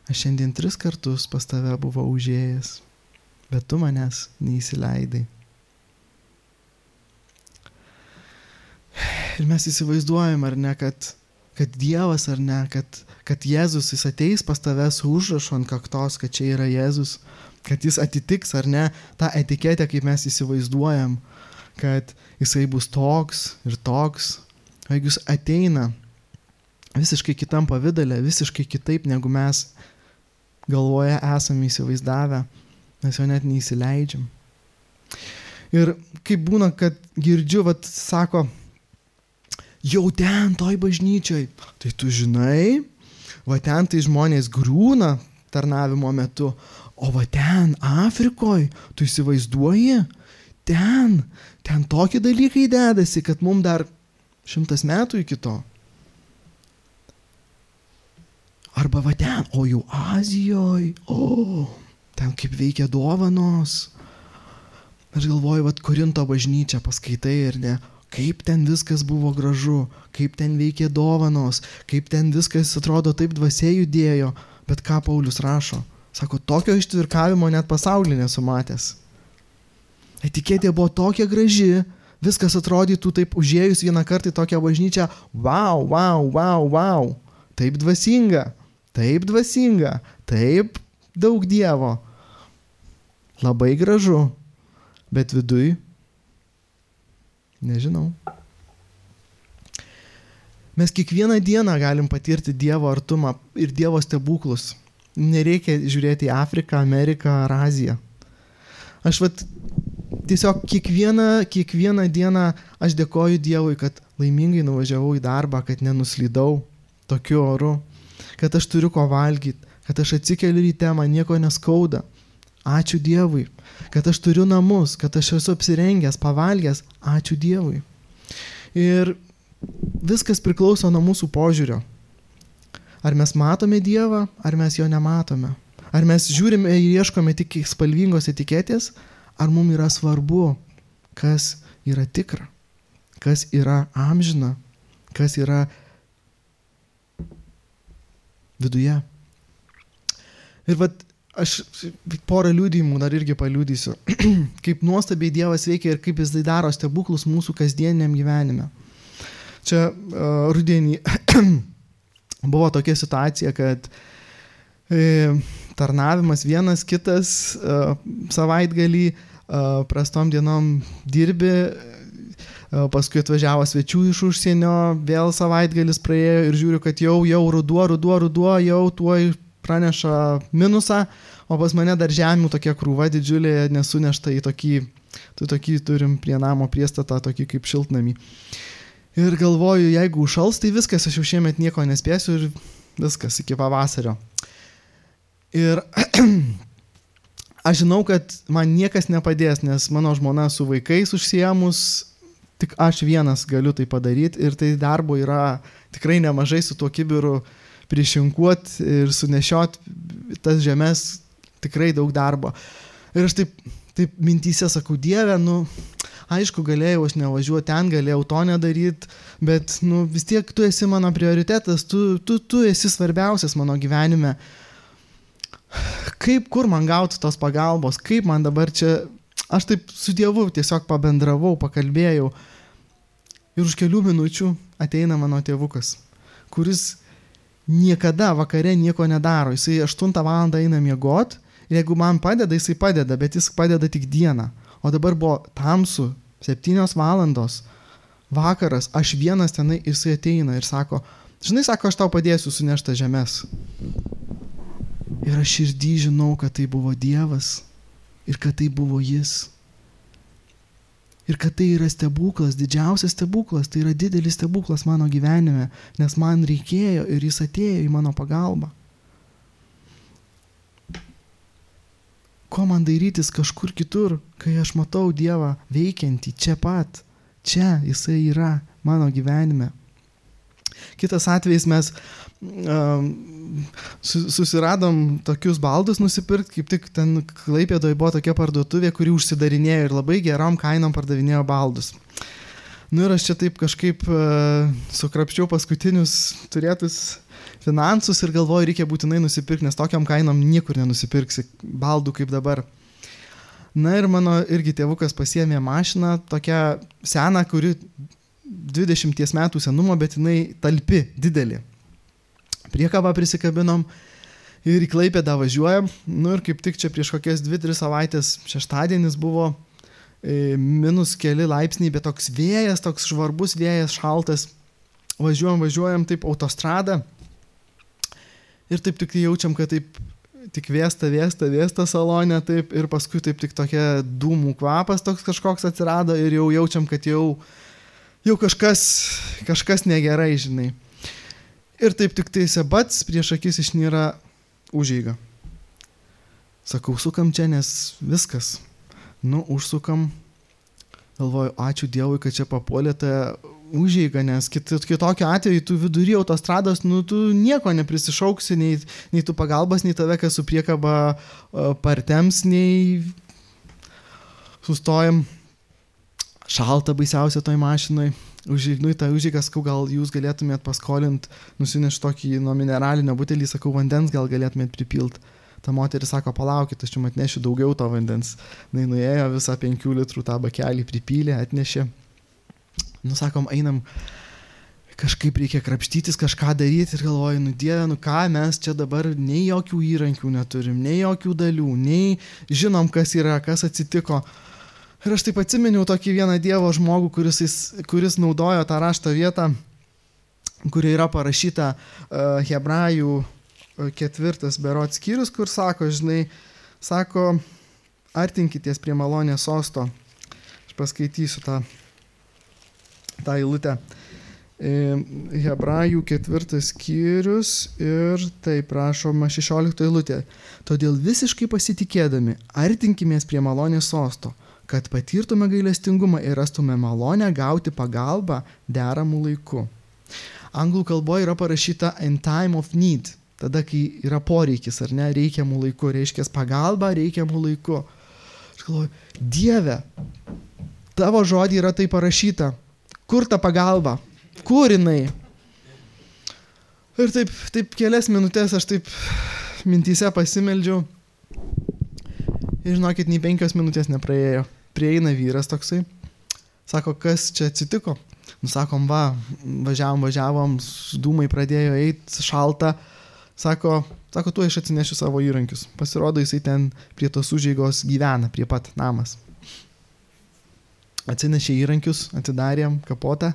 S1: aš šiandien 3 kartus pas tave buvau užėjęs, bet tu manęs neįsileidai. Ir mes įsivaizduojam, ar ne, kad Dievas, ar ne, kad Jėzus jis ateis pas tave su užrašu ant kaktos, kad čia yra Jėzus, kad jis atitiks, ar ne, tą etiketę, kaip mes įsivaizduojam, kad jisai bus toks ir toks. O jeigu jis ateina visiškai kitam pavidale, visiškai kitaip, negu mes galvoje esame įsivaizdavę, mes jo net neįsileidžiam. Ir kaip būna, kad girdžiu, sako, jau ten toj bažnyčioj, tai tu žinai, ten tai žmonės griūna tarnavimo metu, o ten Afrikoj, tu įsivaizduoji, ten tokie dalykai dedasi, kad mums dar 100 metų iki to. Arba ten, o jau Azijoj, ten kaip veikia dovanos. Aš galvoju, Korinto bažnyčia paskaitai ir ne, kaip ten viskas buvo gražu, kaip ten veikė dovanos, kaip ten viskas atrodo taip dvasia judėjo, bet ką Paulius rašo? Sako, tokio ištvirkavimo net pasaulyje nesu matęs. Etiketė buvo tokia graži, viskas atrodytų taip užėjus vieną kartą į tokią bažnyčią, wow, taip dvasinga, taip daug Dievo, labai gražu, bet viduj, nežinau. Mes kiekvieną dieną galim patirti Dievo artumą ir Dievo stebuklus. Nereikia žiūrėti į Afriką, Ameriką ar Aziją. Aš tiesiog kiekvieną dieną aš dėkoju Dievui, kad laimingai nuvažiavau į darbą, kad nenuslydau tokiu oru, kad aš turiu ko valgyti, kad aš atsikeliu ryte, man nieko neskauda. Ačiū Dievui, kad aš turiu namus, kad aš esu apsirengęs, pavalgęs. Ačiū Dievui. Ir viskas priklauso nuo mūsų požiūrio. Ar mes matome Dievą, ar mes jo nematome? Ar mes žiūrime ir ieškome tik spalvingos etiketės, ar mums yra svarbu, kas yra tikra, kas yra amžina, kas yra viduje. Ir aš porą liudijimų dar irgi paliudysiu, kaip nuostabiai Dievas veikia ir kaip jis daro stebuklus mūsų kasdieniam gyvenime. Čia rudenį buvo tokia situacija, kad tarnavimas vienas kitas savaitgalį, prastom dienom dirbi, paskui atvažiavo svečių iš užsienio, vėl savaitgalis praėjo ir žiūriu, kad jau ruduo, jau tuoj praneša minusą, o pas mane dar žemių tokia krūva didžiulė nesunešta į tokį turim prie namo priestatą, tokį kaip šiltnamį. Ir galvoju, jeigu užšals, tai viskas, aš jau šiemet nieko nespėsiu ir viskas iki pavasario. Ir aš žinau, kad man niekas nepadės, nes mano žmona su vaikais užsiėmus, tik aš vienas galiu tai padaryti ir tai darbo yra tikrai nemažai su tuo kibiru prišinkuoti ir sunešiot tas žemės, tikrai daug darbo. Ir aš taip mintyse sakau, Dieve, aišku, galėjau aš nevažiuoti ten, galėjau to nedaryti, bet vis tiek tu esi mano prioritetas, tu esi svarbiausias mano gyvenime. Kur man gauti tos pagalbos, kaip man dabar čia, aš taip su Dievu tiesiog pabendravau, pakalbėjau ir už kelių minučių ateina mano tėvukas, kuris niekada vakare nieko nedaro, jisai 8 valandą eina miegot ir jeigu man padeda, jisai padeda, bet jis padeda tik dieną, o dabar buvo tamsu, 7 valandos, vakaras, aš vienas tenai, jisai ateina ir sako, žinai, sako, aš tau padėsiu sunešti žemės. Ir aš širdį žinau, kad tai buvo Dievas ir kad tai buvo jis. Ir kad tai yra stebuklas, didžiausias stebuklas, tai yra didelis stebuklas mano gyvenime, nes man reikėjo ir jis atėjo į mano pagalbą. Ko man dairytis kažkur kitur, kai aš matau Dievą veikiantį čia pat, čia jisai yra mano gyvenime. Kitas atvejis mes susiradom tokius baldus nusipirkti, kaip tik ten Klaipėdoje buvo tokia parduotuvė, kuri užsidarinėjo ir labai gerom kainom pardavinėjo baldus. Ir aš čia taip kažkaip sukrapščiau paskutinius turėtus finansus ir galvoju, reikia būtinai nusipirkti, nes tokiam kainom niekur nenusipirksi baldų kaip dabar. Ir mano irgi tėvukas pasiėmė mašiną, tokią seną, kuri 20 metų senumo, bet jinai talpi, didelė. Priekabą prisikabinom ir į Klaipėdą važiuojam. Ir kaip tik čia prieš kokias 2-3 savaitės šeštadienis buvo minus keli laipsniai, bet toks vėjas, toks žvarbus vėjas, šaltas. Važiuojam taip autostradą ir taip tik jaučiam, kad taip tik vėsta salone taip ir paskui taip tik tokia dūmų kvapas toks kažkoks atsirado ir jau jaučiam, kad jau kažkas negerai, žinai. Ir taip tik tai sebats prieš akis išnyra užeiga. Sakau, sukam čia, nes viskas. Užsukam. Galvoju, ačiū Dievui, kad čia papuolė ta užeiga, nes kitokiu atveju tu vidury autostrados, tu nieko neprisišauksi, nei tu pagalbas, nei tave, kas su priekaba partems, nei sustojam. Šalta baisiausia toj mašinoj. Užeignu į tą užeigą, sakau, gal jūs galėtumėt paskolint, nusinešti tokį nuo mineralinio butelį, sakau, vandens gal galėtumėt pripilt. Ta moteris sako, palaukit, aš jums atnešiu daugiau to vandens. Nuėjo visą 5 litrų tą bakelį pripylė, atnešė. Sakom, einam, kažkaip reikia krapštytis, kažką daryti ir galvoju, Dieve, ką mes čia dabar nei jokių įrankių neturim, nei jokių dalių, nei žinom, kas yra, kas atsitiko. Ir aš taip atsiminiau tokį vieną Dievo žmogų, kuris naudojo tą rašto vietą, kuri yra parašyta Hebrajų 4 berods skyrius, kur sako, artinkitės prie malonės sosto. Aš paskaitysiu tą eilutę. Hebrajų 4 skyrius ir taip rašoma 16 eilutė. Todėl visiškai pasitikėdami artinkimės prie malonės sosto, kad patirtume gailestingumą ir rastume malonę gauti pagalbą deramų laiku. Anglų kalboje yra parašyta in time of need, tada, kai yra poreikis, ar ne, reikiamų laiku, reiškia pagalba reikiamų laiku. Aš galvoju, Dieve, tavo žodį yra tai parašyta, kur ta pagalba, kur jinai? Ir taip kelias minutės aš taip mintyse pasimeldžiau Ir žinokit, nei 5 minutės nepraėjo. Prieina vyras toksai. Sako, kas čia atsitiko? Sakom, važiavom, dūmai pradėjo eiti, šalta. Sako, tu aš atsinešiu savo įrankius. Pasirodo, jisai ten prie tos užeigos gyvena, prie pat namas. Atsinešė įrankius, atidarėm kapotą.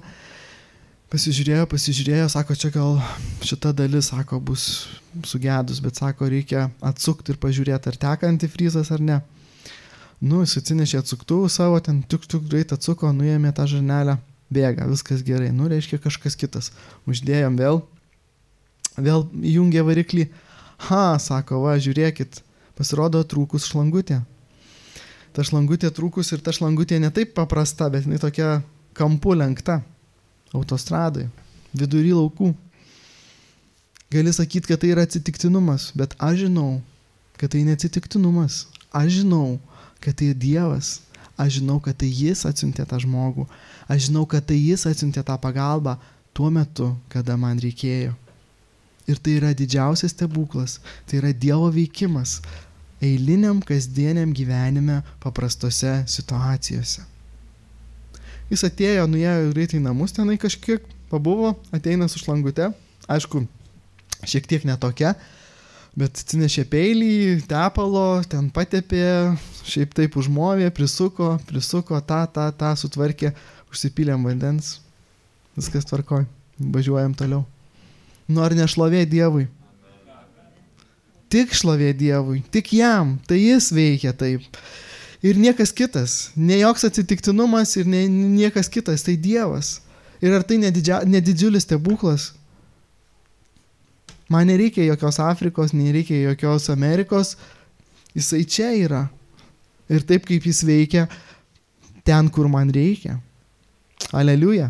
S1: Pasižiūrėjo, sako, čia gal šita dalis, sako, bus sugedus, bet sako, reikia atsukti ir pažiūrėti, ar teka antifrizas ar ne. Jis atsinešė atsuktuvų savo, ten tik greit atsuko, nuėmė tą žarnelę, bėga, viskas gerai, reiškia kažkas kitas. Uždėjom vėl įjungė variklį. Sako, žiūrėkit, pasirodo trūkus šlangutė. Ta šlangutė trūkus ir ta šlangutė ne taip paprasta, bet jinai tokia kampu lenkta. Autostradai, vidury laukų. Gali sakyti, kad tai yra atsitiktinumas, bet aš žinau, kad tai neatsitiktinumas. Aš žinau, kad tai Dievas. Aš žinau, kad tai Jis atsiuntė tą žmogų. Aš žinau, kad tai Jis atsiuntė tą pagalbą tuo metu, kada man reikėjo. Ir tai yra didžiausias stebuklas. Tai yra Dievo veikimas eiliniam, kasdieniam gyvenime paprastose situacijose. Jis atėjo, nuėjo greitai į namus, tenai kažkiek pabuvo, ateina su šlangute, aišku, šiek tiek netokia, bet atsinešė peilį, tepalo, ten patepė, šiaip taip užmovė, prisuko, tą sutvarkė, užsipylėm vandens, viskas tvarkoj, važiuojam toliau. Ar ne šlovė Dievui? Tik šlovė Dievui, tik jam, tai jis veikia taip. Ir niekas kitas, ne joks atsitiktinumas ir niekas kitas, tai Dievas. Ir ar tai nedidžiulis stebuklas? Man nereikia jokios Afrikos, nereikia jokios Amerikos, jisai čia yra. Ir taip kaip jis veikia ten, kur man reikia. Aleliuja.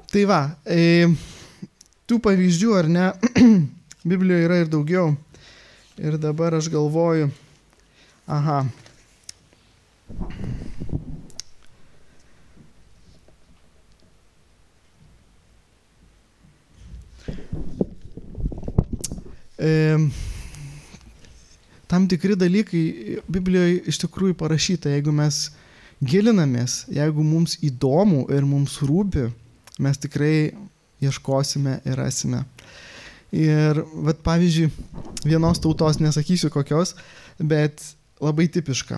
S1: Tai tų pavyzdžių, ar ne, Biblijoje yra ir daugiau. Ir dabar aš galvoju, tam tikri dalykai Biblijoje iš tikrųjų parašyta, jeigu mes gilinamės, jeigu mums įdomu ir mums rūpi, mes tikrai ieškosime ir rasime. Ir pavyzdžiui, vienos tautos, nesakysiu kokios, bet labai tipiška.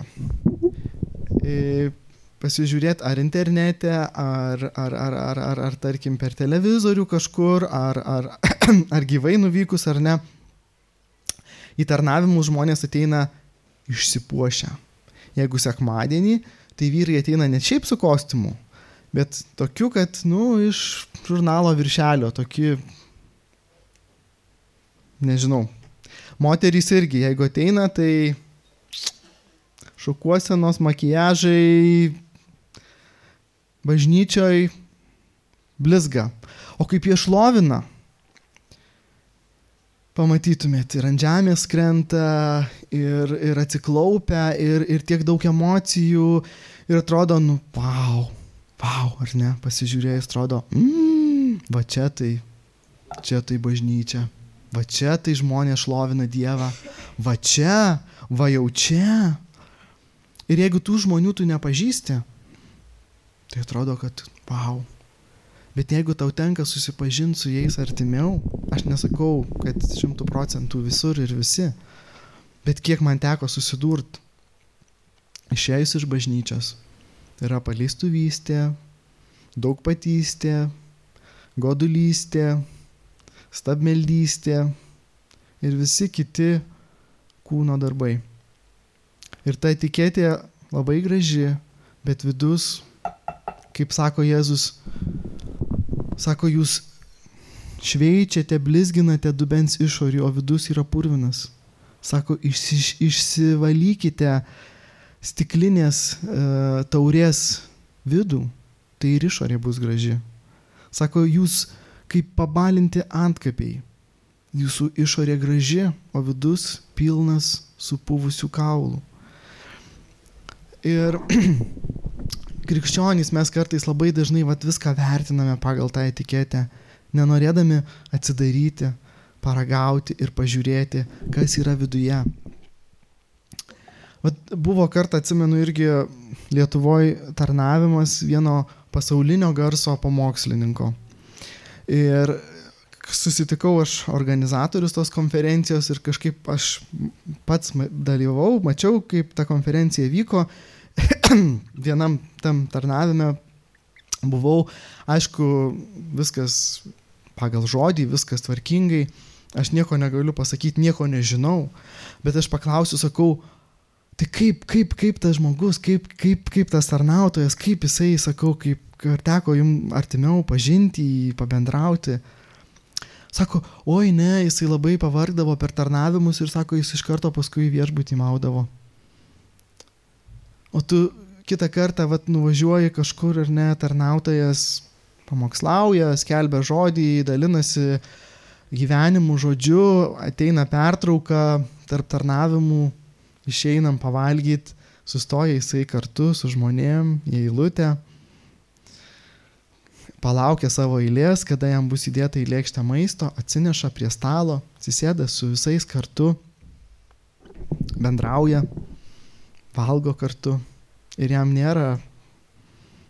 S1: Pasižiūrėti ar internete, ar tarkim per televizorių kažkur, ar gyvai nuvykus, ar ne. Į tarnavimus žmonės ateina išsipuošę. Jeigu sekmadienį, tai vyrai ateina ne šiaip su kostiumu, bet tokiu, kad, iš žurnalo viršelio, tokie, nežinau. Moterys irgi, jeigu ateina, tai šukuosenos, makiažai, bažnyčioj blizga. O kaip jie šlovina, pamatytumėt, ir ant žemės krenta, ir atsiklaupia, ir tiek daug emocijų, ir atrodo, vau, ar ne, pasižiūrėjus, atrodo, va čia tai bažnyčia. Va čia tai žmonės šlovina Dievą. Va čia, va jau čia. Ir jeigu tų žmonių tu nepažįsti, tai atrodo, kad vau. Bet jeigu tau tenka susipažinti su jais artimiau, aš nesakau, kad 100% visur ir visi, bet kiek man teko susidurti, išėjus iš bažnyčios, yra paleistuvystė, daugpatystė, godulystė, stabmeldystė ir visi kiti kūno darbai. Ir ta etiketė labai graži, bet vidus, kaip sako Jėzus, sako, jūs šveičiate, blizginate dubens išorį, o vidus yra purvinas. Sako, išsivalykite stiklinės taurės vidų, tai ir išorė bus graži. Sako, jūs kaip pabalinti antkapiai. Jūsų išorė graži, o vidus pilnas supuvusių kaulų. Ir krikščionys mes kartais labai dažnai viską vertiname pagal tą etiketę, nenorėdami atsidaryti, paragauti ir pažiūrėti, kas yra viduje. Vat buvo kartą, atsimenu, irgi Lietuvoje tarnavimas vieno pasaulinio garso pamokslininko. Ir susitikau aš organizatorius tos konferencijos ir kažkaip aš pats dalyvau, mačiau, kaip ta konferencija vyko. Vienam tam tarnavime buvau, aišku, viskas pagal žodį, viskas tvarkingai. Aš nieko negaliu pasakyti, nieko nežinau, bet aš paklausiu, sakau, tai kaip tas žmogus, kaip tas tarnautojas, kaip jisai, sakau, kaip ar teko jums artimiau pažinti, pabendrauti. Sako, oi ne, jisai labai pavargdavo per tarnavimus ir sako, jis iš karto paskui viešbutį maudavo. O tu kitą kartą nuvažiuoji kažkur ir ne, tarnautojas pamokslauja, skelbia žodį, dalinasi gyvenimu žodžiu, ateina pertrauka tarp tarnavimų, išeinam pavalgyti, sustoja jisai kartu su žmonėm į eilutę, palaukia savo eilės, kada jam bus įdėta į lėkštę maisto, atsineša prie stalo, atsisėda su visais kartu, bendrauja, valgo kartu ir jam nėra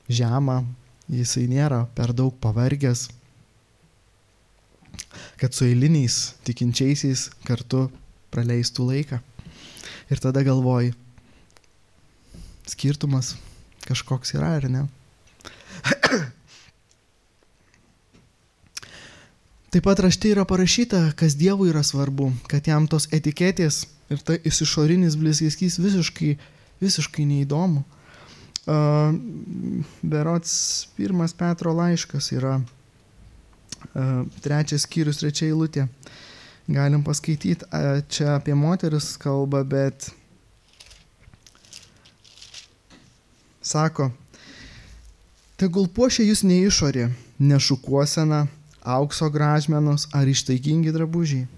S1: žema, jisai nėra per daug pavargęs, kad su eiliniais tikinčiaisiais kartu praleistų laiką. Ir tada galvoji, skirtumas kažkoks yra, ar ne? Taip pat rašte yra parašyta, kas Dievui yra svarbu, kad jam tos etiketės ir tai išorinis blizgeskys visiškai neįdomu. Berods 1 Petro laiškas yra 3 skyrius 3 eilutė. Galim paskaityti, čia apie moteris kalba, bet sako, tegul puošia jūs ne išorė, ne šukuosena, aukso gražmenos ar ištaigingi drabužiai,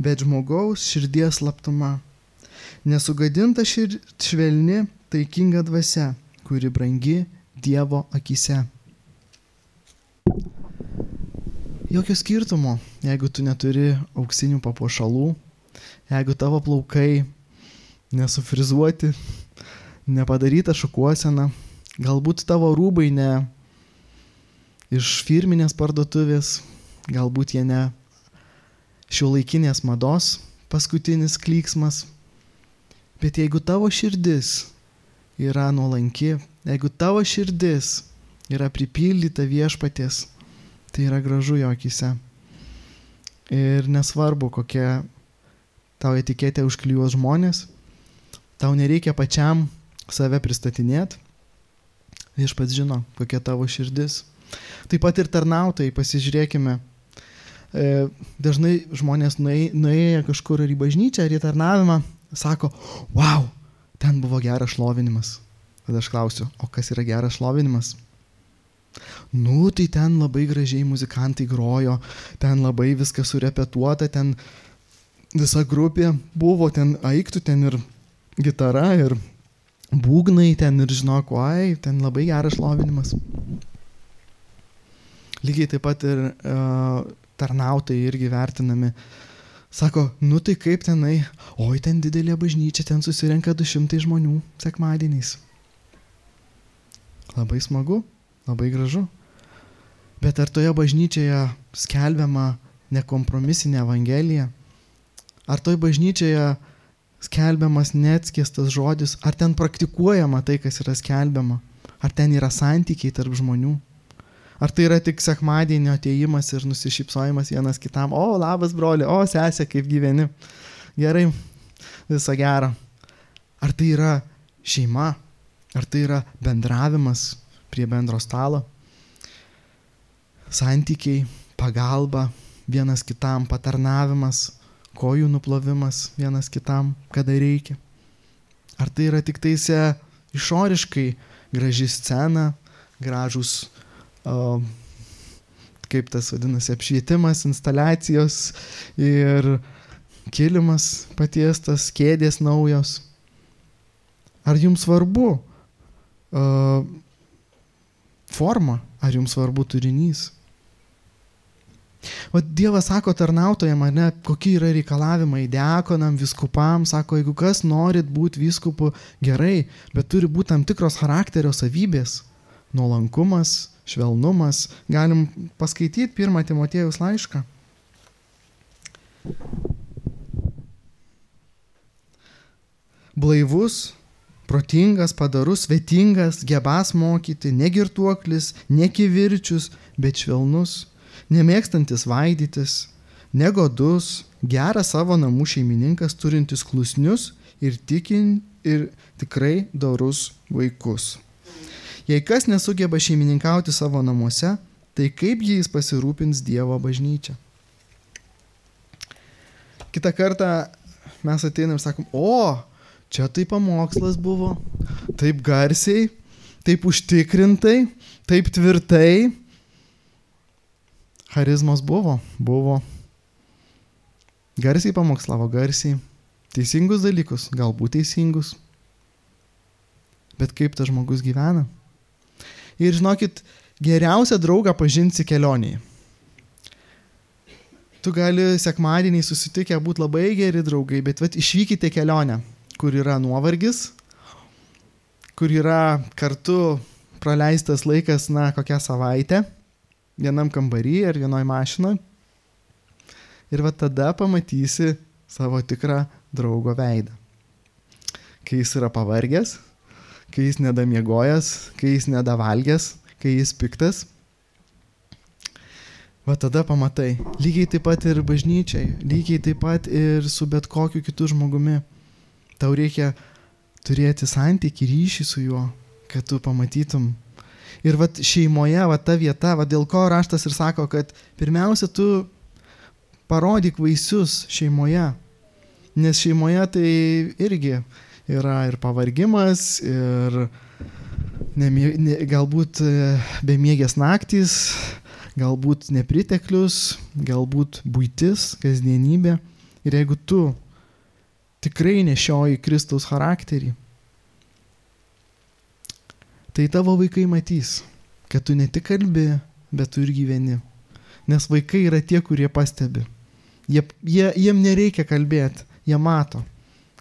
S1: bet žmogaus širdies slaptuma, nesugadinta švelni, taikinga dvasia, kuri brangi Dievo akyse. Jokio skirtumo, jeigu tu neturi auksinių papuošalų, jeigu tavo plaukai nesufrizuoti, nepadaryta šukuosena, galbūt tavo rūbai ne iš firminės parduotuvės, galbūt jie ne šiuolaikinės mados paskutinis klyksmas, bet jeigu tavo širdis yra nuolanki, jeigu tavo širdis yra pripildyta viešpaties, tai yra gražu jo akyse. Ir nesvarbu, kokia tau etiketė užklijuos žmonės, tau nereikia pačiam save pristatinėti, viešpats žino, kokia tavo širdis. Taip pat ir tarnautojai, pasižiūrėkime, dažnai žmonės nuėję kažkur ar į bažnyčią, ar į tarnavimą, sako, wow, ten buvo geras šlovinimas. Tada aš klausiu, o kas yra geras šlovinimas? Nu, tai ten labai gražiai muzikantai grojo, ten labai viskas surepetuota, ten visa grupė buvo, ten aiktų, ten ir gitara, ir būgnai, ten ir žinok, oi, ten labai geras šlovinimas. Lygiai taip pat ir tarnautojai irgi vertinami. Sako, nu tai kaip tenai, oi, ten didelė bažnyčia, ten susirenka 200 žmonių sekmadieniais. Labai smagu, labai gražu. Bet ar toje bažnyčioje skelbiama nekompromisinė evangelija? Ar toje bažnyčioje skelbiamas neatskiestas žodis? Ar ten praktikuojama tai, kas yra skelbiama? Ar ten yra santykiai tarp žmonių? Ar tai yra tik sekmadienio atėjimas ir nusišypsojimas vienas kitam? O, labas broli, o, sesė, kaip gyveni? Gerai, viso gero. Ar tai yra šeima? Ar tai yra bendravimas prie bendro stalo? Santykiai, pagalba vienas kitam, patarnavimas, kojų nuplovimas vienas kitam, kada reikia? Ar tai yra tik taise išoriškai graži scena, gražus kaip tas vadinasi, apšvietimas, instaliacijos ir kilimas patiestas, kėdės naujos? Ar jums svarbu forma, ar jums svarbu turinys? O Dievas sako tarnautojam, ne, kokie yra reikalavimai diakonam, vyskupam, sako, jeigu kas norit būti vyskupu, gerai, bet turi būti tam tikros charakterio savybės. Nuolankumas, švelnumas. Galim paskaityti 1 Timotiejaus laišką. Blaivus, protingas, padorus, svetingas, gebas mokyti, negirtuoklis, nekivirčius, bet švelnus, nemėgstantis vaidytis, negodus, geras savo namų šeimininkas, turintis klusnius ir tikrai dorus vaikus. Jei kas nesugeba šeimininkauti savo namuose, tai kaip jais pasirūpins Dievo bažnyčia? Kitą kartą mes ateinam ir sakom, čia tai pamokslas buvo, taip garsiai, taip užtikrintai, taip tvirtai. Charizmos buvo. Garsiai pamokslavo, garsiai. Teisingus dalykus, galbūt teisingus. Bet kaip tas žmogus gyvena? Ir žinokit, geriausią draugą pažinsi kelionėje. Tu gali sekmadienį susitikę būti labai geri draugai, bet išvykite kelionę, kur yra nuovargis, kur yra kartu praleistas laikas, kokią savaitę, vienam kambarį ar vienoj mašinoj. Ir tada pamatysi savo tikrą draugo veidą. Kai jis yra pavargęs, kai jis nedamiegojęs, kai jis nedavalgęs, kai jis piktas. Tada pamatai. Lygiai taip pat ir bažnyčiai, lygiai taip pat ir su bet kokiu kitu žmogumi. Tau reikia turėti santykį, ryšį su juo, kad tu pamatytum. Ir šeimoje, ta vieta, dėl ko raštas ir sako, kad pirmiausia tu parodyk vaisius šeimoje. Nes šeimoje tai irgi yra ir pavargimas, ir galbūt bemiegės naktys, galbūt nepriteklius, galbūt buitis, kasdienybė. Ir jeigu tu tikrai nešioji Kristaus charakterį, tai tavo vaikai matys, kad tu ne tik kalbi, bet tu ir gyveni. Nes vaikai yra tie, kurie pastebi. Jiem nereikia kalbėti, jie mato,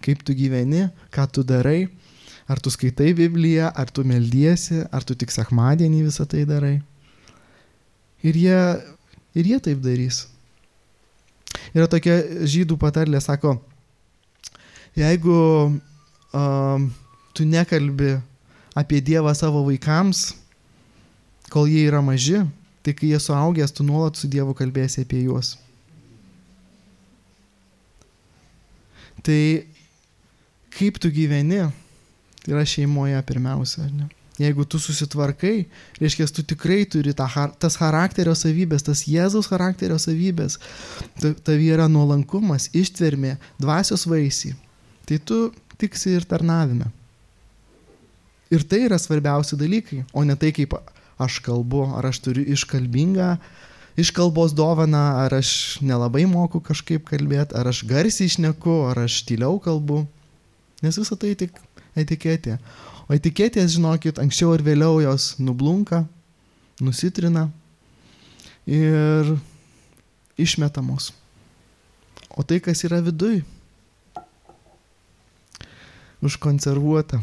S1: kaip tu gyveni, ką tu darai, ar tu skaitai Bibliją, ar tu meldiesi, ar tu tik sekmadienį visą tai darai. Ir jie taip darys. Yra tokia žydų patarlė, sako, jeigu tu nekalbi apie Dievą savo vaikams, kol jie yra maži, tai kai jie suaugęs, tu nuolat su Dievu kalbėsi apie juos. Tai kaip tu gyveni, tai yra šeimoje pirmiausia, ar ne? Jeigu tu susitvarkai, reiškia, tu tikrai turi tas charakterio savybės, tas Jėzaus charakterio savybės, tavyje yra nuolankumas, ištvermė, dvasios vaisiai, tai tu tiksi ir tarnavime. Ir tai yra svarbiausi dalykai, o ne tai, kaip aš kalbu, ar aš turiu iškalbos dovaną, ar aš nelabai moku kažkaip kalbėti, ar aš garsiai šneku, ar aš tyliau kalbu. Nes visą tai tik etiketė. O etiketės, žinokit, anksčiau ar vėliau jos nublunka, nusitrina ir išmetamos. O tai, kas yra viduj, užkonservuota,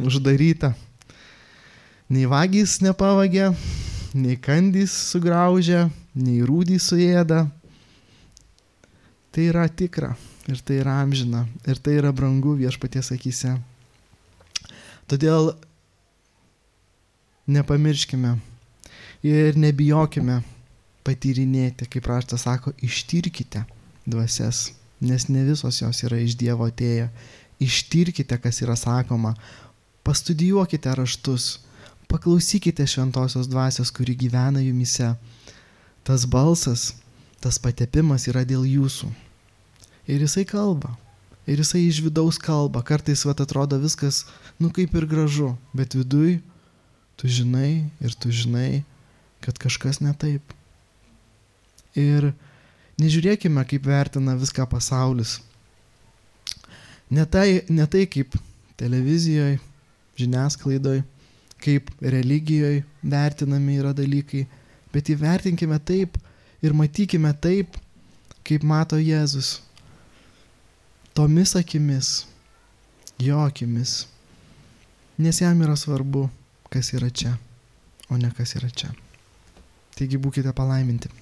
S1: uždaryta. Nei vagys nepavagia, nei kandys sugraužia, nei rūdys suėda. Tai yra tikra ir tai yra amžina ir tai yra brangu Viešpaties akyse. Todėl nepamirškime ir nebijokime patyrinėti, kaip raštas sako, ištirkite dvasias, nes ne visos jos yra iš Dievo atėję. Ištirkite, kas yra sakoma, pastudijuokite raštus, paklausykite šventosios dvasios, kuri gyvena jumise. Tas balsas, tas patepimas yra dėl jūsų. Ir jisai kalba. Ir jisai iš vidaus kalba. Kartais atrodo viskas, kaip ir gražu, bet viduj tu žinai, kad kažkas ne taip. Ir nežiūrėkime, kaip vertina viską pasaulis. Ne tai kaip televizijoje, žiniasklaidoje, kaip religijoje vertinami yra dalykai, bet įvertinkime taip, ir matykime taip, kaip mato Jėzus. Tomis akimis, jo akimis. Nes jam yra svarbu, kas yra čia, o ne kas yra čia. Taigi būkite palaiminti.